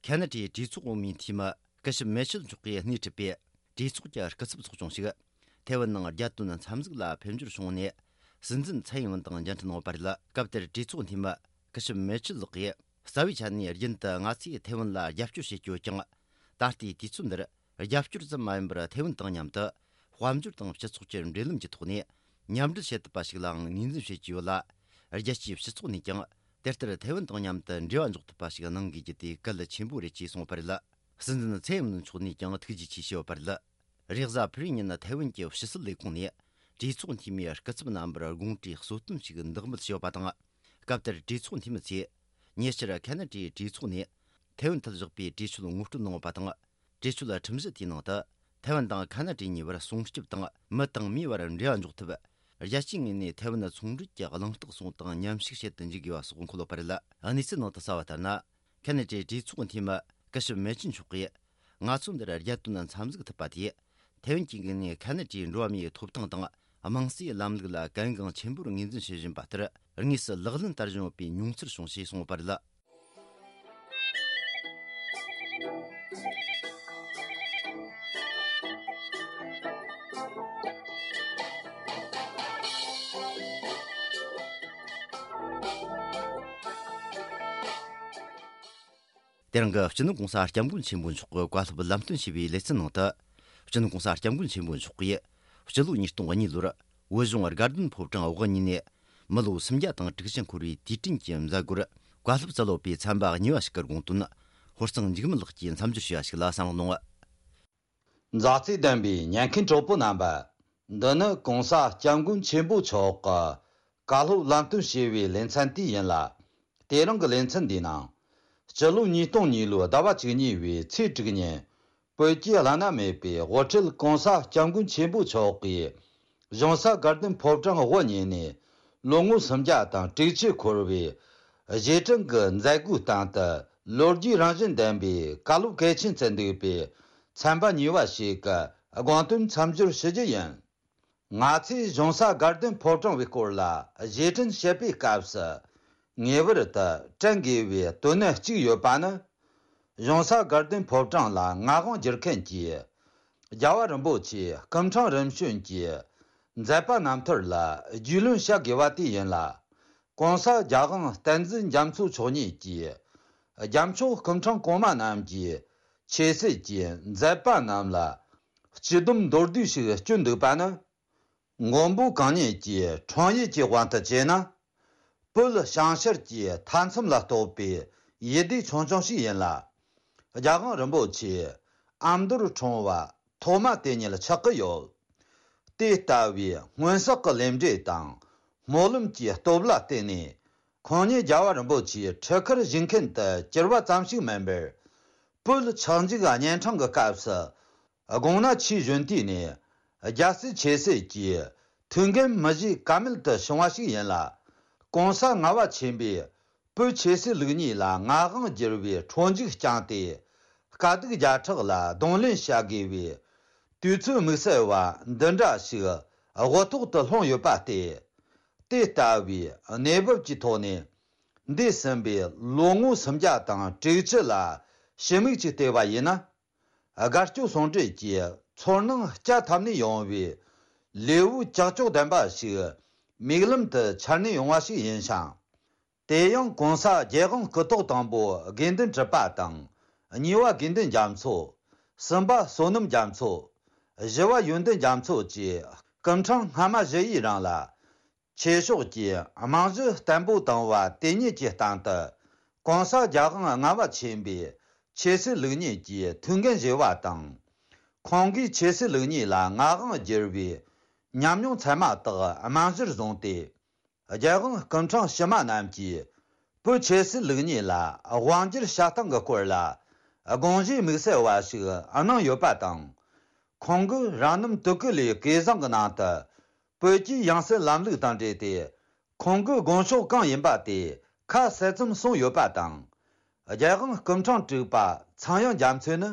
ཁེ་ན་ཌའི་གྲོས་ཚོགས་འོག་མའི་འཐུས་མི་སྐུ་ཞབས་མེ་ཆལ་མཆོག་གིས་སྣེ་ཁྲིད་པའི་གྲོས་ཚོགས་ཀྱི་སྐུ་ཚབ་ཚོགས་ཆུང་ཞིག་ཐའེ་ཝན་ནང་རྒྱལ་དོན་འཚམས་གཟིགས་ལ་ཕེབས་འབྱོར་བྱུང་ནས། སྲིད་འཛིན་ཚའེ་ཡིན་ཝུན་དང་མཇལ་འཕྲད་གནང་བ་རེད། སྐབས་དེར་གྲོས་ཚོགས་འཐུས་མི་སྐུ་ཞབས་མེ་ཆལ་ལགས་ཀྱིས། རྩ་བའི་ཆ་ནས་རྒྱུན་དུ་ང་ཚོས་ཐའེ་ཝན་ལ་རྒྱབ་སྐྱོར་བྱེད་ཀྱི་ཡོད་ཀྱང་། ད་ལྟའི་དུས་ཚོད་འདིར་རྒྱབ་སྐྱོར་ཙམ་མ་ཡིན་པར་ཐའེ་ཝན་དང་མཉམ་དུ་དཔལ་འབྱོར་དང་སྤྱི་ཚོགས་ཀྱི་འབྲེལ་ལམ་གྱི་ཐོག་ནས་མཉམ་འབྲེལ་བྱེད་ཐུབ་པ་ཞིག་ལའང་ངོས་འཛིན་བྱེད་ཀྱི་ཡོད་ལ། རྒྱལ་སྤྱིའི་སྤྱི་ཚོགས་ནས་ཀྱང་དེ་ལྟར་ཐའེ་ཝན་དང་མཉམ་དུ་འབྲེལ་བ་འཇོག་ཐུབ་པ་ཞིག་གནང་དགོས་རྒྱུ་དེ་གལ་ཆེན་པོ་རེད་ཅེས་གསུངས་པ་རེད། སྲིད་འཛིན་ཚའེ་ཡིན་ཝུན་མཆོག་ནས་ཀྱང་ཐུགས་རྗེ་ཆེ་ཞུས་ཡོད་པ་རེད། རེས་གཟའ་ཕུར་བུའི་ཉིན་ཐའེ་ཝན་གྱི་ཕྱི་སྲིད་ལས་ཁུངས་ནས་གྲོས་ཚོགས་འཐུས་མིའི་སྐུ་ཚབ་རྣམ་པར་དགོངས་དྲིས་གསོལ་སྟོན་ཞིག་འདེགས་འབུལ་ཞུས་པ་དང་། སྐབས་དེར་གྲོས་ཚོགས་འཐུས་མི་ཚོས་ཉེ་ཆར་ཁེ་ན་ཌའི་གྲོས་ཚོགས་ནས་ཐའེ་ཝན་ཐད་བཞག་པའི་གྲོས་ཆོད་ངོ་སྤྲོད་གནང་ཡོད་པ་དང་། གྲོས་ཆོད་ཁྲིམས་གཞི་དེའི་ནང་དུ་ཐའེ་ཝན་དང་ཁེ་ན་ཌའི་གཉིས་བར་སྲུང་སྐྱོབ་དང་མི་དང་མིའི་བར་འབྲེལ་བ་འཇོག་ཐབས། རྒྱལ་སྤྱིའི་ངོས་ནས་ཐའེ་ཝན་ཚོང་འབྲེལ་གྱི་གླེང་སྟེགས་སོགས་དང་མཉམ་ཞུགས་བྱེད་དུ་འཇུག་དགོས་པ་སོགས་འཁོད་ཡོད་པ་རེད། གནས་ཚུལ་ནང་དུ་གསལ་བ་ལྟར་ན། ཁེ་ན་ཌའི་གྲོས་ཚོགས་འཐུས་མི་སྐུ་ཞབས་མེ་ཆུན་མཆོག་གིས། ང་ཚོ་འདིར་རྒྱལ་དོན་འཚམས་གཟིགས་ཐུབ་པ་དེས། ཐའེ་ཝན་གྱི་ངོས་ནས་ཁེ་ན་ཌའི་འགྲོ་བ་མིའི་ཐོབ་ཐང་དང་དམངས་གཙོའི་ལམ་ལུགས་ལ་གལ་འགངས་ཆེན་པོར་ངོས་འཛིན་བྱེད་བཞིན་པ་ལྟར། དངོས་སུ་ལག་ལེན་བསྟར་བཞིན་ཡོད་པའི་མྱོང་ཚོར་བྱུང་ཞེས་གསུངས་ཡོད་པ་རེད། དེ་རིང་གི་སྤྱི་ནོར་༸གོང་ས་༸སྐྱབས་མགོན་ཆེན་པོ་མཆོག་གི་བཀའ་སློབ་ལམ་སྟོན་ཞུས་པའི་ལེ་ཚན་ནང་དུ། སྤྱི་ནོར་༸གོང་ས་༸སྐྱབས་མགོན་ཆེན་པོ་མཆོག་གིས་སྤྱི་ལོ་ཉིས་སྟོང་གཉིས་ལོར་བོད་གཞུང་དགའ་ལྡན་ཕོ་བྲང་འོག་གཉིས་ནས་མི་ལོ་སུམ་བརྒྱ་དང་དྲུག་ཅུ་འཁོར་བའི་དུས་དྲན་གྱི་མཛད་སྒོར་བཀའ་སློབ་སྩལ་ཡོད་པའི་ཚན་པ་གཉིས་པ་ཞིག་གི་དགོངས་དོན་ཧོར་གཙང་འཇིགས་མེད་ལགས་ཀྱིས་མཚམས་སྦྱོར་ཞུས་པ་ཞིག་ལ་གསན་རོགས་གནང་། མཛའ་བརྩེ་ལྡན་པའི་ཉན་མཁན་གྲོགས་པོ་རྣམ་པ། འདི་ནི་༸གོང་ས་༸སྐྱབས་མགོན་ཆེན་པོ་མཆོག་གི་བཀའ་སློབ་ལམ་སྟོན་ཞུ་བའི་ལེ་ཚན་དེ་ཡིན་ལ། དེ་རིང་གི་ལེ་ཚན་འདིའི་ནང་། སྤྱི་ལོ་ཉིས་སྟོང་གཉིས་ལོའི་ཟླ་བ་བཅུ་གཉིས་པའི་ཚེས་དྲུག་ཉིན། བོད་ཀྱི་བླ་ན་མེད་པའི་དབུ་ཁྲིད་༸གོང་ས་༸སྐྱབས་མགོན་ཆེན་པོ་མཆོག་གིས་གཞུང་ས་དགའ་ལྡན་ཕོ་བྲང་དབུ་བརྙེས་ནས་ལོ་ངོ་སུམ་བརྒྱ་དང་དྲུག་ཅུ་འཁོར་བའི་རྗེས་དྲན་གྱི་མཛད་སྒོའི་སྟེང་དུ། ལོ་རྒྱུས་རང་བཞིན་ལྡན་པའི་བཀའ་སློབ་གལ་ཆེན་བསྩལ་འདུག་པས། ཚན་པ་གཉིས་པ་ཞིག་གི་དགོངས་དོན་མཚམས་སྦྱོར་ཞུ་རྒྱུ་ཡིན། ང་ཚོས་གཞུང་ས་དགའ་ལྡན་ཕོ་བྲང་བའི་སྐོར་ལ་རྗེས་དྲན་བཤད་པའི་སྐབས་སུ། ངེས་པར་དུ་དྲན་དགོས་པའི་དོན་གནད་གཅིག་ཡོད་པ་ནི། གཞུང་ས་དགའ་ལྡན་ཕོ་བྲང་ལ་མངའ་དབང་བསྒྱུར་མཁན་གྱི་རྒྱལ་བ་རིན་པོ་ཆེ་སྐུ་ཕྲེང་རིམ་བྱོན་གྱི་མཛད་པ་རྣམ་ཐར་ལ་རྒྱུས་ལོན་བྱ་དགོས་པ་དེ་ཡིན་ལ། ༸གོང་ས་༸རྒྱལ་དབང་བསྟན་འཛིན་རྒྱ་མཚོ་མཆོག་ཉིད་ཀྱིས་རྒྱལ་མཆོག་སྐུ་ཕྲེང་གོང་མ་རྣམས་ཀྱི་ཆོས་སྲིད་ཀྱི་མཛད་པ་རྣམས་ལ་སྤྱི་སྡོམ་མདོར་བསྡུས་ཤིག་བསྐྱོན་འདུག་པ་ནི། མགོན་པོ་གང་ཉིད་ཀྱི་འཁྲུངས་ཡུལ་གྱི་དབང་དུ་བྱས་ན། བོད་བྱང་ཤར་གྱི་མཐའ་མཚམས་ལ་གཏོགས་པའི་ཡུལ་སྡེ་ཆུང་ཆུང་ཞིག་ཡིན་ལ། རྒྱལ་དབང་རིན་པོ་ཆེ་ཨ་མདོར་འཁྲུངས་པ་ཐོག་མ་དེ་ཉིད་ཆགས་ཀྱི་ཡོད། དེ་ལྟ་བུའི་སྔོན་བསགས་ཀྱི་ལས་འབྲས་དང་སྨོན་ལམ་གྱི་སྟོབས་ལ་བརྟེན་ནས། ཁོང་ཉིད་རྒྱལ་བ་རིན་པོ་ཆེའི་ཁྲི་ཁར་བཞུགས་མཁན་དུ་གྱུར་པ་ཙམ་ཞིག་མིན་པར། བོད་ཆགས་འཇིག་གཉན་འཕྲང་གི་སྐབས་སུ། དགོངས་ན་ཆོས་གཞོན་དུས་ནས་རྒྱལ་སྲིད་ཆོས་སྲིད་ཀྱི་ཐུགས་འགན་མི་བཞེས་ཀ་མེད་དུ་བྱུང་བ་ཞིག་ཡིན་ལ། ༸གོང་ས་ལྔ་པ་ཆེན་པོས་བོད་ཆོས་སྲིད་ལུགས་གཉིས་ལ་མངའ་དབང་བསྒྱུར་བའི་འཕྲོ་མཇུག་བསྐྱངས་ཏེ། དཀའ་སྡུག་བརྒྱ་ཕྲག་ལ་གདོང་ལེན་བྱ་དགོས་པའི་དུས་ཚོད་དམིགས་བསལ་བ་འདི་འདྲ་ཞིག་དབུ་ཐོག་ཏུ་ལྷུང་ཡོད་པ་སྟེ། དེ་ལྟ་བུའི་གནས་བབ་ཀྱི་ཐོག་ནས། འདས་ཟིན་པའི་ལོ་ངོ་སུམ་བརྒྱ་དང་དྲུག་ཅུ་ལ་ཕྱི་མིག་ཅིག་བལྟས་པ་ཡིན་ན། དགའ་སྐྱོ་ཟུང་འབྲེལ་གྱི་ཚོར་སྣང་བསྐྱེད་ཐབས་ནས་ཡོང་བའི་ལེའུ་ཀྱག་ཀྱོག་ལྡན་པ་ཞིག་མིག་ལམ་དུ་འཆར་ནས་ཡོང་བ་ཞིག་ཡིན་ཞིང་། དེ་ཡང་༸གོང་ས་༸རྒྱལ་དབང་སྐུ་ཐོག་དང་པོ་དགེ་འདུན་གྲུབ་པ་དང་། གཉིས་པ་དགེ་འདུན་རྒྱ་མཚོ། གསུམ་པ་བསོད་ནམས་རྒྱ་མཚོ། བཞི་བ་ཡོན་ཏན་རྒྱ་མཚོ་བཅས་སྐུ་ཕྲེང་སྔ་མ་བཞི་ཡི་རིང་ལ། ཆོས་ཕྱོགས་ཀྱི་རྨང་གཞི་བརྟན་པོ་བཏིང་བ་དེ་ཉིད་ཀྱི་སྟེང་དུ། ༸གོང་ས་༸རྒྱལ་དབང་ལྔ་པ་ཆེན་པོས་ཆོས་སྲིད་ལུགས་གཉིས་ཀྱི་ཐུགས་འགན་བཞེས་པ་དང་། ཁོང་གིས་ཆོས་སྲིད་ལུགས་གཉིས་ལ་མངའ་དབང་བསྒྱུར་བའི་ཉམས་མྱོང་ཚད་མ་དག་རྨང་གཞིར་བཟུང་སྟེ། རྒྱལ་དབང་སྐུ་ཕྲེང་ཕྱི་མ་རྣམས་ཀྱིས་བོད་ཆོས་སྲིད་ལུགས་གཉིས་ལ་དབང་བསྒྱུར་བྱ་སྟངས་ཀྱི་སྐོར་ལ་དགོངས་བཞེས་དམིགས་བསལ་བ་ཞིག་གནང་ཡོད་པ་དང་། ཁོང་གིས་རང་རྣམ་དུ་ཀུ་ལའི་སྐལ་བཟང་གི་ནང་དུ། བོད་ཀྱི་ཡང་སྲིད་ལམ་ལུགས་དང་འབྲེལ་ཏེ། ཁོང་གི་དགོངས་ཕྱོགས་གང་ཡིན་པ་དེ་ཁ་གསལ་ཙམ་གསུངས་ཡོད་པ་དང་། རྒྱལ་དབང་སྐུ་ཕྲེང་དྲུག་པ་ཚངས་དབྱངས་རྒྱ་མཚོས་ནི།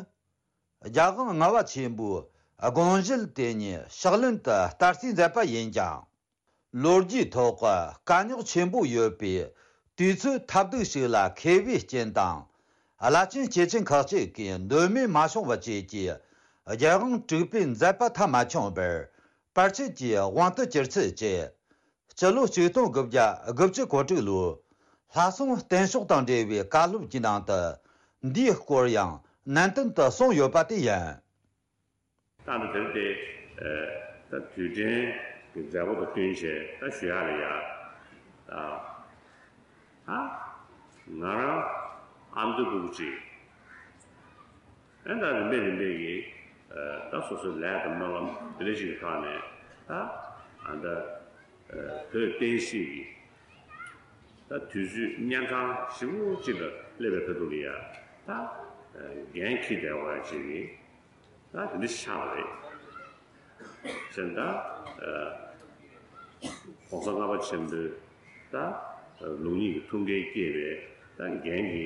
རྒྱལ་དབང་ལྔ་པ་ཆེན་པོའི་དགོངས་གཞི་དེ་ཉིད་ཕྱག་ལེན་དུ་བསྟར་རྩིས་མཛད་པ་ཡིན་ཀྱང་། ལོ་རྒྱུས་ཐོག་དཀའ་རྙོག་ཆེན་པོ་ཡོད་པའི་དུས་ཚོད་ཐབས་སྡུག་ཞིག་ལ་མཁས་པའི་རྐྱེན་དང་། བླ་ཆེན་སྐྱེས་ཆེན་ཁག་ཅིག་གིས་འདོད་མོས་མ་བྱུང་བ་བཅས་ཀྱིས་རྒྱལ་དབང་དྲུག་པའི་མཛད་པ་མཐའ་མ་འཁྱོངས་པར། བར་ཆད་ཀྱི་དབང་དུ་གྱུར་ཚུལ་བཅས། སྤྱི་ལོ་ཆིག་སྟོང་དགུ་བརྒྱ་དགུ་བཅུ་གོ་དྲུག་ལོའི་ལྷ་སྲུང་བརྟན་ཤོག་དང་འབྲེལ་བའི་བཀའ་སློབ་ཀྱི་ནང་དུ། འདིའི་སྐོར་ཡང་ནན་ཏན་དུ་གསུངས་ཡོད་པ་དེ་ཡིན། ད་ལྟ་དེར་དེ། ད་དུས་དྲན་གྱི་མཛད་སྒོ་དང་བསྟུན་བྱས་ད་ཞུ་ཡག་ལ་ཡ། ད་ང་རང་ཨ་མདོའི་སྤུ་གུ་གཅིག་ཨེ་ད་རིམ་པས་རིམ་པས་ཀྱིས་ད་སོ་སོའི་ལས་དང་སྨོན་ལམ་དེ་འདྲ་ཞིག་གི་ཐོག་ནས་ད་ཨ་ད་བོད་བསྟན་སྲིད་ཀྱི་ད་དུས་ཚོད་གཉན་འཕྲང་ཞེ་པོ་ཅིག་ལ་སླེབས་པའི་ཁ་ཐུག་ལ་ཡ་ད་འགན་འཁྱེར་བསྡད་པ་ཅིག་གིས། ད་དེ་འདྲ་ཆགས་པ་རེད། བྱས་ཙང་ད་༸གོང་ས་ལྔ་པ་ཆེན་པོའི་ད་ལུགས་གཉིས་ཀྱི་ཐུགས་འགན་བསྐྱེད་པའི་ད་འགན་གྱི་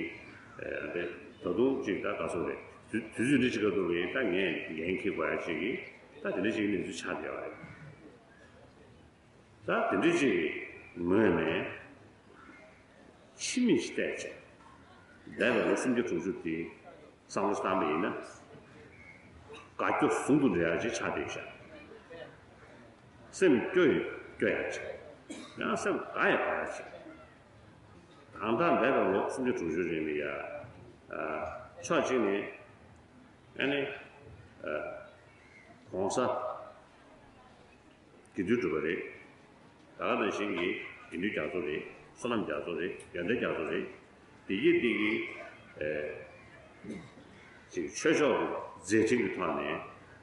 ད་ད་དུང་ཅིག་ད་ག་ཚོད་རེད། དུས་དུས་ཚོད་འདི་ཅིག་ག་འདུག་རེད། ད་ངས་འགན་འཁྱེར་དགོས་ཡ་ཅིག་གི་ད་དེ་འདྲ་ཅིག་གི་གནས་ཚུལ་ཆགས་བསྡད་པ་རེད། ད་དེ་འདྲ་ཅིག་གི་ངོས་ནས་ཕྱི་མིག་ཅིག་བལྟས་བྱས་འདས་པའི་ལོ་སུམ་བརྒྱ་དྲུག་ཅུ་དེ། བསམ་བློ་བཏང་པ་ཡིན་ན། དགའ་སྐྱོ་ཟུང་དུ་འབྲེལ་ཡག་ཅིག་ཆགས་བསྡད་ཤག་སེམས་སྐྱོ་ཡི་སྐྱོ་ཡག་ཅིག་ཡང་སེམས་དགའ་ཡི་དགའ་ཡག་ཅིག་ད་ལྟ་འདས་པའི་ལོ་སུམ་བརྒྱ་དྲུག་ཅུ་རིང་ལ་ཡ། ཕྱོགས་གཅིག་ནས་ཨ་ནི་༸གོང་ས་དགེ་འདུན་གྲུབ་པ་རེད། ད་ག་ནང་བཞིན་གྱི་དགེ་འདུན་རྒྱ་མཚོ་རེད། བསོད་ནམས་རྒྱ་མཚོ་རེད། ཡོན་ཏན་རྒྱ་མཚོ་རེད། དེ་གིས་དེ་གིས་ཨེ་ཅིག་ཆོས་ཕྱོགས་ཀྱི་མཛད་འཕྲིན་གྱི་ཐོག་ནས་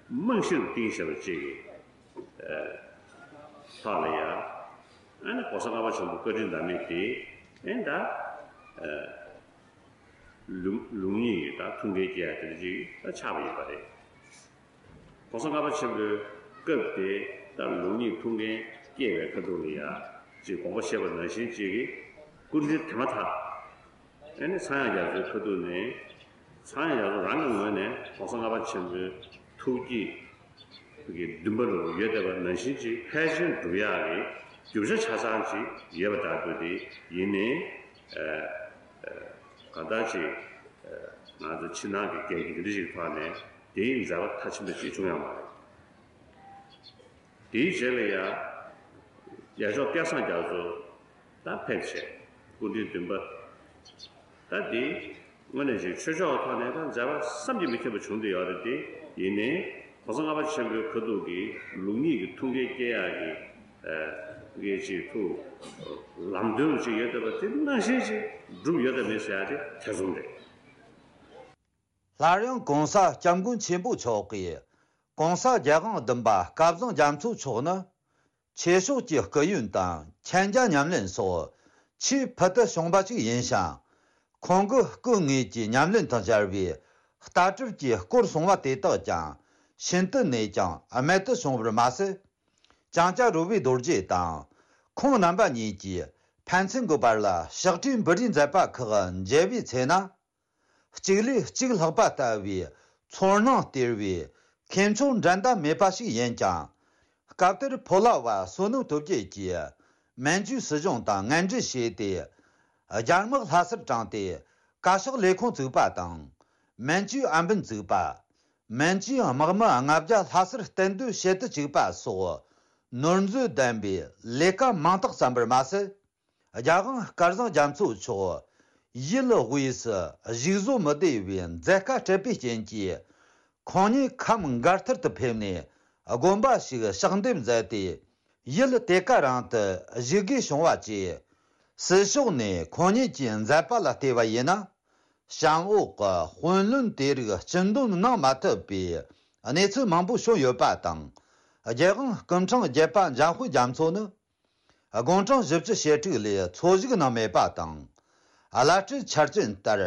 རྨང་གཞིར་བཏིང་བཞག་པ་ཅིག་གི་ཨེ་ཐོག་ལ་ཡ། ཨ་ནི་༸གོང་ས་ལྔ་པ་ཆེན་པོ་བཀའ་དྲིན་ཟླ་མེད་དེ་ཨེ་ད་ཨེ། ལུགས་ལུགས་གཉིས་ཀྱི་ད་ཐུགས་འགན་བསྐྱེད་ཡ་དེ་འདྲ་ཅིག་ད་ཆགས་པ་ཡིན་པ་རེད། གོང་ས་ལྔ་པ་ཆེན་པོའི་སྐབས་དེ་ད་ལུགས་གཉིས་ཐུགས་འགན་བསྐྱེད་པའི་ཁ་ཐུག་ལ་ཡ་ཅིག་དགོངས་པ་བཞེས་པ་ནང་བཞིན་ཅིག་གི་སྐུ་མདུན་དེ་མ་ཐག་ཨ་ནི་ཚངས་དབྱངས་རྒྱ་མཚོའི་ཁ་ཐུག་ནས་ཚངས་དབྱངས་རྒྱ་མཚོ་རང་གི་ངོས་ནས་གོང་ས་ལྔ་པ་ཆེན་པོའི་ཐུགས་བསྐྱེད་ཀྱི་འདུན་པ་རུ་ཡོད་བསྡད་པ་ནང་བཞིན་ཅིག་ཕལ་ཆེར་འགྲུབ་ཡག་གི་རྒྱུ་ཆ་ཆ་ཚང་ཅིག་ཡོད་པ་འདྲ་འདུག་དེ་ཡིན་ནའི་ཨ་ཨ་གང་ལྟར་ཅིག་ཨ་ང་ཚོ་ཕྱི་ནང་གི་འགན་འཁྱེར་འདི་འདྲ་ཞིག་ཐོག་ནས་དེའི་མཛད་པ་མཐའ་ཕྱིན་པ་ཅིག་བྱུང་ཡོད་མ་རེད། དེའི་རྗེས་ལ་ཡང་རྒྱལ་མཆོག་སྐལ་བཟང་རྒྱ་མཚོ་ད་ཕེབས་བྱས་སྐུ་མདུན་འདུན་པ་ད་འདི་དངོས་གནས་ཅིག་ཆོས་ཕྱོགས་ཐོག་ནས་ད་མཛད་པ་བསམ་གྱིས་མི་ཁྱབ་པ་བྱུང་བསྡད་ཡོད་རེད་དེ། ཡིན་ནའི་གོང་ས་ལྔ་པ་ཆེན་པོའི་ཁ་ཐུག་གི་ལུགས་གཉིས་ཀྱི་ཐུགས་འགན་བསྐྱེད་ཡག་གི་ཨ་གི་ཅིག་ཐུགས་ལམ་སྟོན་ཅིག་ཡོད་བསྡད་པ་དེ་ནང་བཞིན་ཅིག་འགྲུབ་ཡོད་དམ་མེད་ཟེར་ཡག་དེ་ཐེ་ཚོམ་རེད། སླར་ཡང་གོང་ས་སྐྱབས་མགོན་ཆེན་པོ་མཆོག་གིས་གོང་ས་རྒྱལ་དབང་བདུན་པ་སྐལ་བཟང་རྒྱ་མཚོ་མཆོག་ནི་ཆོས་ཕྱོགས་ཀྱི་སྐུ་ཡོན་དང་མཁྱེན་རྒྱ་ཉམས་ལེན་སོགས་ཆེས་ཕུལ་དུ་བྱུང་བ་ཞིག་ཡིན་ཞིང་། ཁོང་གི་སྐུ་དངོས་ཀྱི་ཉམས་ལེན་དང་སྦྱར་བའི་ལྟ་གྲུབ་ཀྱི་སྐོར་གསུང་བ་དེ་དག་ཀྱང་ཤིན་ཏུ་ནས་ཀྱང་རྨད་དུ་བྱུང་བར་མ་ཟད། ལྕང་སྐྱ་རོལ་པའི་རྡོ་རྗེ་དང་ཁོང་རྣམ་པ་གཉིས་ཀྱིས་ཕན་ཚུན་གྱི་བར་ལ་ཕྱག་བྲིས་འབུལ་རེས་མཛད་པ་ཁག་མཇལ་བའི་ཚེ་ན། གཅིག་ལས་གཅིག་ལྷག་པ་ལྟ་བུའི་ཚོར་སྣང་སྟེར་བའི་ཁྱད་མཆོག་འགྲན་ཟླ་མེད་པ་ཞིག་ཡིན་ཀྱང་། སྐབས་དེར་ཕོ་ལྷ་བ་བསོད་ནམས་སྟོབས་རྒྱས་ཀྱིས་མན་ཇུའི་སྲིད་གཞུང་དང་ངན་འབྲེལ་བྱས་ཏེ། རྒྱ་དམག་ལྷ་སར་དྲངས་ཏེ་བཀའ་ཤག་ལས་ཁུངས་བཙུགས་པ་དང་། མན་ཇུའི་ཨམ་བན་བཙུགས་པ། མན་ཇུའི་དམག་མི་ལྔ་བརྒྱ་ལྷ་སར་གཏན་སྡོད་བྱེད་དུ་བཅུག་པ་སོགས་ནོར་འཛོལ་ལྡན་པའི་ལས་ཀ་མང་དག་བརྩམས་པར་མ་ཟད། རྒྱལ་དབང་སྐལ་བཟང་རྒྱ་མཚོ་མཆོག་ཡུལ་དབུས་སུ་བཞུགས་བཟོད་མི་བདེ་བའི་མཛད་དཀའ་སྤྲད་པའི་རྐྱེན་གྱིས། ཁོང་ཉིད་ཁམས་མགར་ཐར་དུ་ཕེབས་ནས་དགོན་པ་ཞིག་ཕྱག་འདེབས་མཛད་དེ། ཡུལ་དེ་ག་རང་དུ་བཞུགས་དགོས་བྱུང་བ་བཅས། སྲིད་ཕྱོགས་ནས་ཁོང་ཉིད་ཀྱི་མཛད་པ་ལ་བལྟས་པ་ཡིན་ན། བྱམས་འོག་གི་དཔོན་བློན་དེ་རིགས་སྤྱི་འདོམས་གནང་མ་ཐུབ་པའི་གནས་ཚུལ་མང་པོ་བྱུང་ཡོད་པ་དང་། རྒྱལ་དབང་སྐུ་ཕྲེང་བརྒྱད་པ་འཇམ་དཔལ་རྒྱ་མཚོ་ནི། དགུང་གྲངས་བཞི་བཅུ་ཞེ་དྲུག་ལས་འཚོ་བཞུགས་གནང་མེད་པ་དང་། བླ་སྤྲུལ་ཆར་ཅན་ལྟར་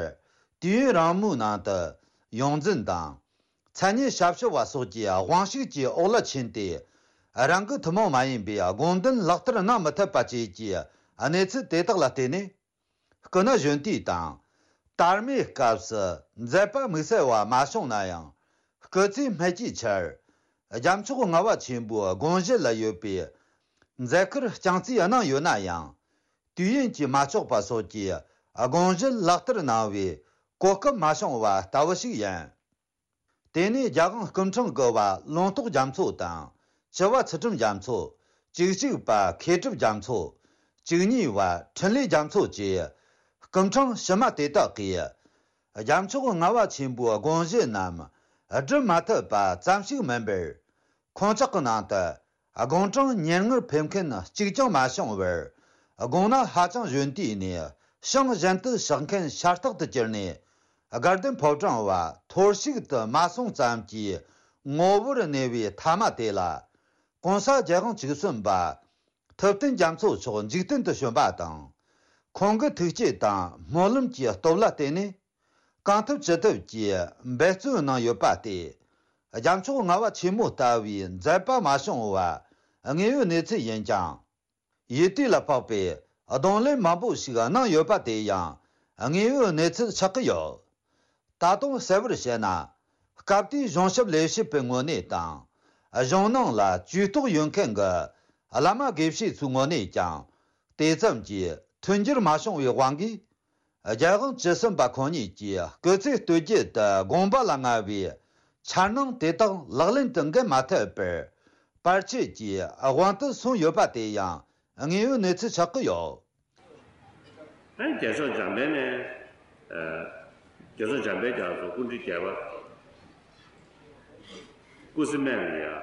དུས་ཡུན་རིང་མོའི་ནང་དུ་ཡོངས་འཛིན་དང་། མཚན་སྙན་ཞབས་ཞུ་བ་སོགས་ཀྱི་དབང་ཤུགས་ཀྱི་འོག་ལ་ཕྱིན་ཏེ། རང་གི་ཐུན་མོང་མ་ཡིན་པའི་དགོངས་དོན་ལག་བསྟར་གནང་མི་ཐུབ་པ་བཅས་ཀྱི་གནས་ཚུལ་དེ་དག་ལ་བརྟེན་ནས། སྐུ་ན་གཞོན་དུས་དང་། དར་མའི་སྐབས་སུ་མཛད་པ་དམིགས་བསལ་བ་མ་བྱུང་ན་ཡང་། སྐུ་ཚེ་སྨད་ཀྱི་ཆར། རྒྱལ་མཆོག་ལྔ་པ་ཆེན་པོའི་དགོངས་གཞི་ལ་ཡོད་པའི་མཛད་ཁུར་རྐྱང་རྩིས་གནང་ཡོད་ན་ཡང་། དུས་ཡུན་གྱིས་མ་ཆོག་པ་སོགས་ཀྱི་དགོངས་གཞི་ལག་བསྟར་གནང་བའི་གོ་སྐབས་མ་བྱུང་བ་ལྟ་བུ་ཞིག་ཡིན། དེ་ནས་རྒྱལ་དབང་སྐུ་ཕྲེང་དགུ་པ་ལུང་རྟོགས་རྒྱ་མཚོ་དང་། བཅུ་པ་ཚུལ་ཁྲིམས་རྒྱ་མཚོ། བཅུ་གཅིག་པ་མཁས་གྲུབ་རྒྱ་མཚོ། བཅུ་གཉིས་པ་འཕྲིན་ལས་རྒྱ་མཚོ་བཅས་སྐུ་ཕྲེང་ཕྱི་མ་དེ་དག་གིས། རྒྱལ་མཆོག་ལྔ་པ་ཆེན་པོའི་དགོངས་གཞི་རྣམས་སྒྲུབ་མ་ཐུབ་པ་ཙམ་ཞིག་མིན་པར། ཁོང་ཅག་གི་ནང་དུ་དགུང་གྲངས་ཉེར་ལྔར་ཕེབས་མཁན་གཅིག་ཀྱང་མ་བྱུང་བར། དགུང་ན་ཧ་ཅང་གཞོན་དུས་ནས་ཞིང་གཞན་དུ་གཤེགས་མཁན་ཤ་སྟག་ཏུ་གྱུར་ནས། དགའ་ལྡན་ཕོ་བྲང་བ་ཐོར་ཞིག་ཏུ་མ་སོང་ཙམ་གྱི་ངོ་བོར་གནས་པའི་ཐ་མ་དེ་ལ། གོང་ས་རྒྱལ་དབང་བཅུ་གསུམ་པ་ཐུབ་བསྟན་རྒྱ་མཚོ་མཆོག་འཇིག་རྟེན་དུ་བྱོན་པ་དང་། ཁོང་གི་ཐུགས་བསྐྱེད་དང་སྨོན་ལམ་གྱི་སྟོབས་ལ་བརྟེན་ནས། གང་ཐུབ་ཅི་ཐུབ་ཀྱིས་འབད་བརྩོན་གནང་ཡོད་པ་སྟེ། རྒྱལ་མཆོག་ལྔ་པ་ཆེན་མོ་ལྟ་བུའི་མཛད་པ་མ་བྱུང་བ་དངོས་ཡོད་གནས་ཚུལ་ཡིན་ཀྱང་། ཡུལ་དུས་ལ་དཔག་པའི་གདོང་ལེན་མང་པོ་ཞིག་གནང་ཡོད་པ་དེ་ཡང་དངོས་ཡོད་གནས་ཚུལ་ཆགས་ཀྱི་ཡོད། ད་དུང་གསལ་བོར་བཤད་ན། སྐབས་དེའི་གཞུང་ཞབས་ལས་བྱེད་པའི་ངོས་ནས་དང་། གཞུང་ནང་ལ་ཇུས་གཏོགས་ཡོད་མཁན་གྱི་བླ་མ་དགེ་བཤེས་ཚོའི་ངོས་ནས་ཀྱང་། དེ་ཙམ་གྱིས་མཐུན་འགྱུར་མ་བྱུང་བའི་དབང་གིས། རྒྱལ་དབང་བཅུ་གསུམ་པ་ཁོང་ཉིད་ཀྱིས་སྐུ་ཚེ་སྟོད་རྒྱུད་དུ་དགོངས་པ་ལ་མངའ་བའི་འཆར་སྣང་དེ་དག་ལག་ལེན་དུ་འགེལ་མ་ཐུབ་པར། བར་ཆད་ཀྱི་དབང་དུ་སོང་ཡོད་པ་དེ་ཡང་དངོས་ཡོད་གནས་ཚུལ་ཆགས་ཀྱི་ཡོད། ཨ་ནི་རྒྱལ་མཆོག་འཇམ་དཔལ་ནས། ཨ། རྒྱལ་མཆོག་འཇམ་དཔལ་རྒྱ་མཚོ་སྐུ་ཕྲེང་བརྒྱད་པ། སྐུ་ཚེ་སྨད་ལ་ཡ།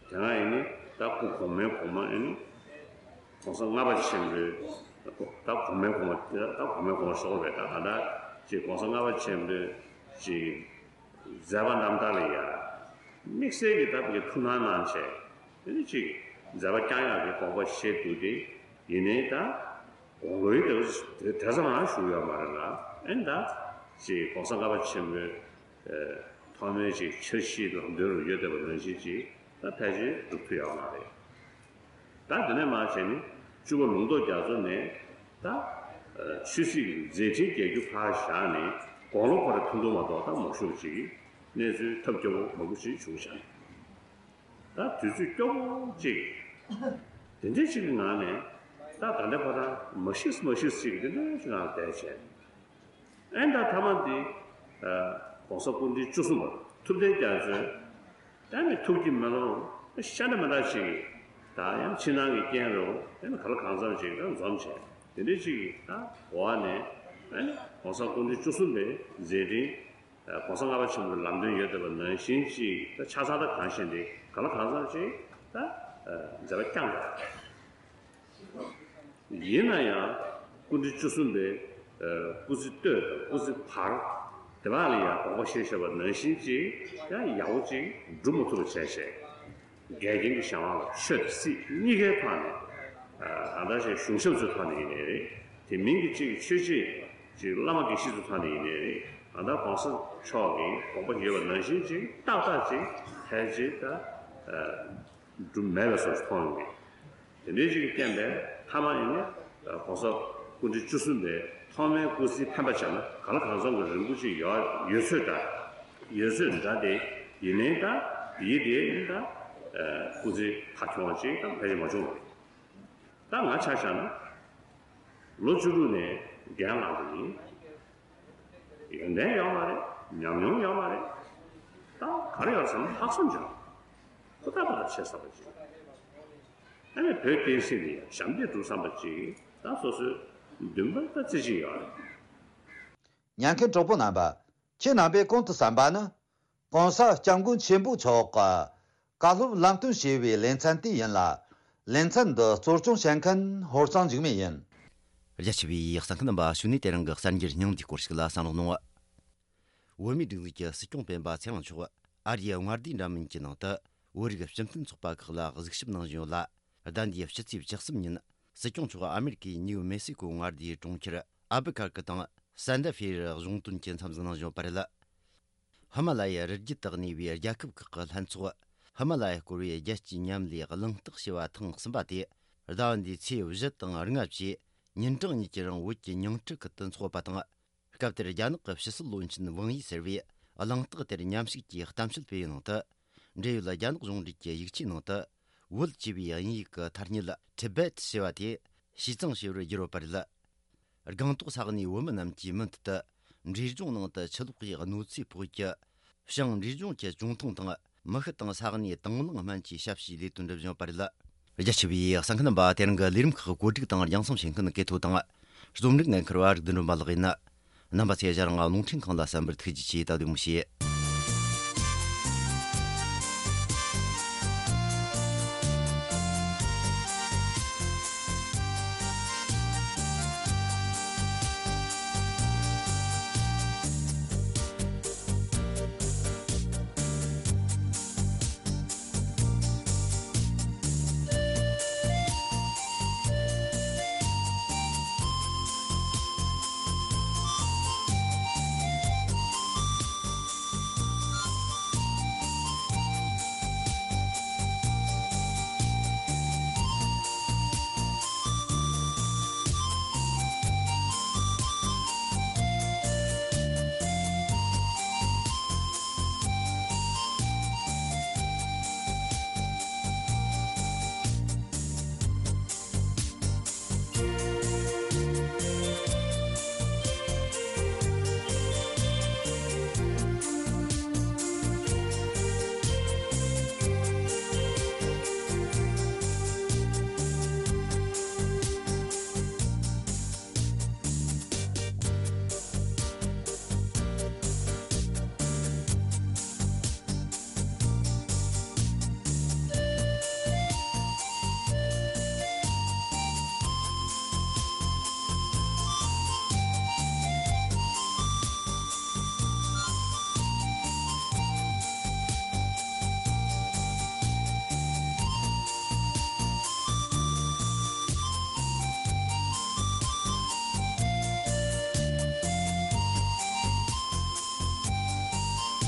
དེ་སྔ་ཡིན་ནི་ད་སྐུ་གོང་མའི་གོང་མ་ཡིན་ནི། གོང་ས་ལྔ་པ་ཆེན་པོའི་ད་གོང་མའི་གོང་མ་ད་གོང་མའི་གོང་མ་ཤོར་བས་ད་ག་ད་ཅིག་གོང་ས་ལྔ་པ་ཆེན་པོའི་ཅིག་མཛད་པ་རྣམ་ཐར་ལ་ཡ། དམིགས་བསལ་གྱི་ད་བུ་གའི་ཐུགས་སྣང་གནང་བྱས་དེ་ནི་ཅིག་མཛད་པ་བསྐྱང་ཡག་གི་དགོངས་པ་བཞེས་འདུག་སྟེ་ཡིན་ནའི་ད། དགུང་ལོའི་དེ་དེ་ཙམ་རང་བཞུགས་ཡོད་མ་རེད་ལ། ཨེ་ད་ཅིག་གོང་ས་ལྔ་པ་ཆེན་པོའི་ཨེ་ཐོག་མའི་ཅིག་འཆར་གཞིའི་ལམ་སྟོན་རུ་ཡོད་བསྡད་པ་ནང་བཞིན་ཅིག་ད་ཕལ་ཆེར་འགྲུབ་ཐུབ་ཡོད་མ་རེད། ད་དེ་ནས་མར་བྱས་ནས་བཅུ་པ་ལུང་རྟོགས་རྒྱ་མཚོ་ནས་ད་ཨེ་ཆོས་སྲིད་ཀྱི་མཛད་འཕྲིན་རྒྱས་རྒྱུ་ཕར་བཞག་ནས་དགུང་ལོ་ཁོ་རང་ཐུང་ཐུང་མ་གཏོགས་ད་མ་བཞུགས་པ་ཅིག་གནས་ཚུལ་ཐབས་སྐྱོ་པོ་མང་པོ་ཞིག་བྱུང་བཞག་ད་དུས་ཚོད་སྐྱོ་པོ་གཅིག་དེ་འདྲའི་གཅིག་གི་ངང་ནས་ད་ད་ལྟ་ཁོ་རང་མ་ཤི་མ་ཤི་གཅིག་དེ་འདྲའི་གཅིག་ངང་བསྡད་བྱས། ཨེ་ད་ཐ་མ་འདི་ཨ་༸གོང་ས་སྐུ་ཕྲེང་བཅུ་གསུམ་པ་ཐུབ་བསྟན་རྒྱ་མཚོས་ད་ནི་ཐུགས་ཀྱི་མེ་ལོང་ཤ་འདྲ་མི་འདྲ་ཅིག་ད་ཡང་ཕྱི་ནང་གི་རྐྱེན་རུ་ཨེ་ནི་ག་ལ་གང་འཚམ་ཅིག་ད་འཛོམས་བྱས། དེ་འདྲའི་གཅིག་ད་འོག་ནས་ཨེ་ནི་༸གོང་ས་སྐུ་ཕྲེང་བཅུ་གསུམ་པའི་མཛད་འཕྲིན། ཨ་༸གོང་ས་ལྔ་པ་ཆེན་པོའི་ལམ་སྟོན་ཡོད་བསྡད་པ་ནང་བཞིན་ཅིག་ད་ཆ་ཚང་ད་གང་ཤེས་འདི་ག་ལ་གང་འཚམ་ཅིག་ད་ཨ་མཛད་པ་བསྐྱངས་པ་རེད། ཡིན་ན་ཡང་སྐུ་ཕྲེང་བཅུ་གསུམ་པའི་ཨ་སྐུ་ཚེ་སྟོད་དང་སྐུ་ཚེ་བར་དེ་བ་ལ་ཡང་དགོངས་པ་བཞེས་བཞག་པ་ནང་བཞིན་ཅིག་ཡང་ཡག་པོ་ཅིག་སྒྲུབ་མ་ཐུབ་པ་བྱས་བྱས། འགལ་རྐྱེན་གྱི་གཞན་དབང་ལ་ཆོས་དང་སྲིད་གཉིས་ཀའི་ཐོག་ནས་ཨ་ད་ཆ་གཞུང་ཞབས་ཚོའི་ཐོག་ནས་ཡིན་ནའི་རེད། དེ་མིན་གྱི་གཅིག་ཆོས་བྱེད་ཅིག་བླ་མ་དགེ་བཤེས་ཚོའི་ཐོག་ནས་ཡིན་ནའི་རེད། ཨ་ད་༸གོང་ས་མཆོག་གིས་དགོངས་པ་ཡོད་པ་ནང་བཞིན་ཅིག་ཏག་ཏག་ཅིག་ཕལ་ཆེར་ད་ཨ་སྒྲུབ་མེད་པའི་བཟོ་ཞིག་མཐོང་ཡོང་གི། དེ་འདྲའི་ཅིག་གི་རྐྱེན་པས་མཐའ་མ་ཡིན་ནའི་ཨ་༸གོང་ས་སྐུ་ཕྲེང་བཅུ་གསུམ་པའི་ཐོག་མའི་སྐུ་ཚེའི་འཕེན་པ་བྱས་ན་ག་ལ་གང་འཚམ་གྱི་རིང་པོ་ཅིག་ཡོད་ཡོད་ཚོད་འདྲ། ཡོད་ཚོད་འདྲ་དེ་ཡིན་ནའི་ད་དེའི་དེ་ཡིན་ད་ཨ་སྐུ་ཚེ་ཁ་ཁྱོང་བ་ཅིག་ད་ཕལ་ཆེར་མ་བྱུང་བ་རེད། ད་ང་ཆ་བཞག་ན་ལོ་བཅུ་དྲུག་ནས་འགན་བླངས་པ་ཡིན། ཡོན་ཏན་ཡོད་མ་རེད། ཉམས་མྱོང་ཡོད་མ་རེད། ད་ག་རེ་ཡོད་ཟེར་ན་ལྷག་བསམ་ཅིག་ཡོད། ཧུར་ཐག་པ་ལ་བྱེད་བསམ་པ་ཅིག་ཨ་ནི་བོད་བསྟན་སྲིད་ལ་ཡང་ཞབས་འདེགས་སྒྲུབ་བསམ་པ་ཅིག་ད་སོ་སོའི་འདུན་པ་ད་རྩེ་གཅིག་ཡོད་རེད། ཉན་མཁན་གྲོགས་པོ་རྣམ་པ། ཁྱེད་རྣམ་པས་གོང་དུ་གསན་པ་ནི། ༸གོང་ས་༸སྐྱབས་མགོན་ཆེན་པོ་མཆོག་གི་བཀའ་སློབ་ལམ་སྟོན་ཞེས་པའི་ལེ་ཚན་དེ་ཡིན་ལ། ལེ་ཚན་འདི་གཙོ་སྐྱོང་བྱེད་མཁན་ཧོར་གཙང་འཇིགས་མེད་ཡིན། རྒྱ་ཆེ་བའི་གསན་མཁན་རྣམ་པ། ཞུ་ནས་དེ་རིང་གི་གསར་འགྱུར་སྙིང་བསྡུས་སྐོར་ཞིག་ལ་གསན་རོགས་གནང་། བོད་མིའི་སྒྲིག་འཛུགས་ཀྱི་སྲིད་སྐྱོང་སྤེན་པ་ཚེ་རིང་མཆོག་ཨ་རིའི་མངའ་སྡེའི་འདྲ་མིན་གྱི་ནང་དུ་བོད་རིགས་སྤྱི་མཐུན་ཚོགས་པ་ཁག་ལ་གཟིགས་ཞིབ་གནང་བཞིན་ཡོད་ལ། ཟླ་འདིའི་ཕྱི་ཚེས་བཅུ་གསུམ་ཉིན་སྲིད་སྐྱོང་མཆོག་ཨ་མེ་རི་ཀའི་ནིའུ་མེ་སི་ཀོ་མངའ་སྡེའི་གྲོང་ཁྱེར་ཨལ་བུ་ཁར་ཀི་དང་སན་ད་ཧྥེ་རུ་གཞུང་དོན་གྱི་འཚམས་གཟིགས་གནང་བཞིན་ཡོད་པ་རེད། ཧི་མ་ལ་ཡའི་རི་རྒྱུད་དུ་གནས་པའི་རྒྱལ་ཁབ་ཁག་གི་ལྷན་ཚོགས། ཧི་མ་ལ་ཡ་སྐོར་བའི་རྒྱལ་སྤྱིའི་མཉམ་ལས་གླེང་སྟེགས་ཞེས་པ་ཐེངས་གསུམ་པ་དེ་ཟླ་བ་འདིའི་ཚེས་བཞི་དང་ལྔ་བཅས་ཉིན་གྲངས་གཉིས་ཀྱི་རིང་བོད་ཀྱི་ཉིང་ཁྲི་ཁུལ་དུ་འཚོགས་པ་དང་། སྐབས་དེར་རྒྱ་ནག་གི་ཕྱི་སྲིད་བློན་ཆེན་ཝང་ཡི་ཟེར་བས་གླེང་སྟེགས་དེར་མཉམ་ཞུགས་ཀྱིས་གཏམ་བཤད་སྤེལ་བའི་ནང་དུ། འབྲེལ་ཡོད་རྒྱ་ནག་གཞུང་འབྲེལ་གྱི་ཡིག་ཆའི་ནང་དུ། བོད་ཅེས་པའི་དབྱིན་ཡིག་གི་ཐ་སྙད་Tibet ཞེས་པ་དེ་ཞིས་ཙང་ཞེས་པར་བསྒྱུར་བ་རེད། སྒང་ཏོག་ས་གནས་བོད་མི་རྣམས་ཀྱིས་མུ་མཐུད་དུ་འབྲས་ལྗོངས་ནང་དུ་ཆུ་ལོག་གིས་གནོད་འཚེ་ཕོག་རྒྱུ། བྱང་འབྲས་ལྗོངས་ཀྱི་ཅུང་ཐུང་དང་མི་ཤི་དང་ས་གནས་དང་བླངས་སྨན་གྱི་ཞབས་ཞུའི་ལས་དོན་སྒྲུབ་བཞིན་ཡོད་པ་རེད། རྒྱ་ཆེ་བའི་གསན་མཁན་རྣམ་པ། དེ་རིང་གི་ལས་རིམ་ཁག་བཀོད་སྒྲིག་དང་རྒྱང་སྲིང་བྱེད་མཁན་གལ་ཐོ་དང་། རྩོམ་སྒྲིག་འགན་འཁུར་བ་རིག་ལྡན་སྒྲོལ་མ་ལགས་ཡིན། རྣམ་པ་ཚོས་ང་རང་རླུང་འཕྲིན་ཁང་ལ་གསན་པར་ཐུགས་རྗེ་ཆེ། ད་བདེ་མོ་བྱོས།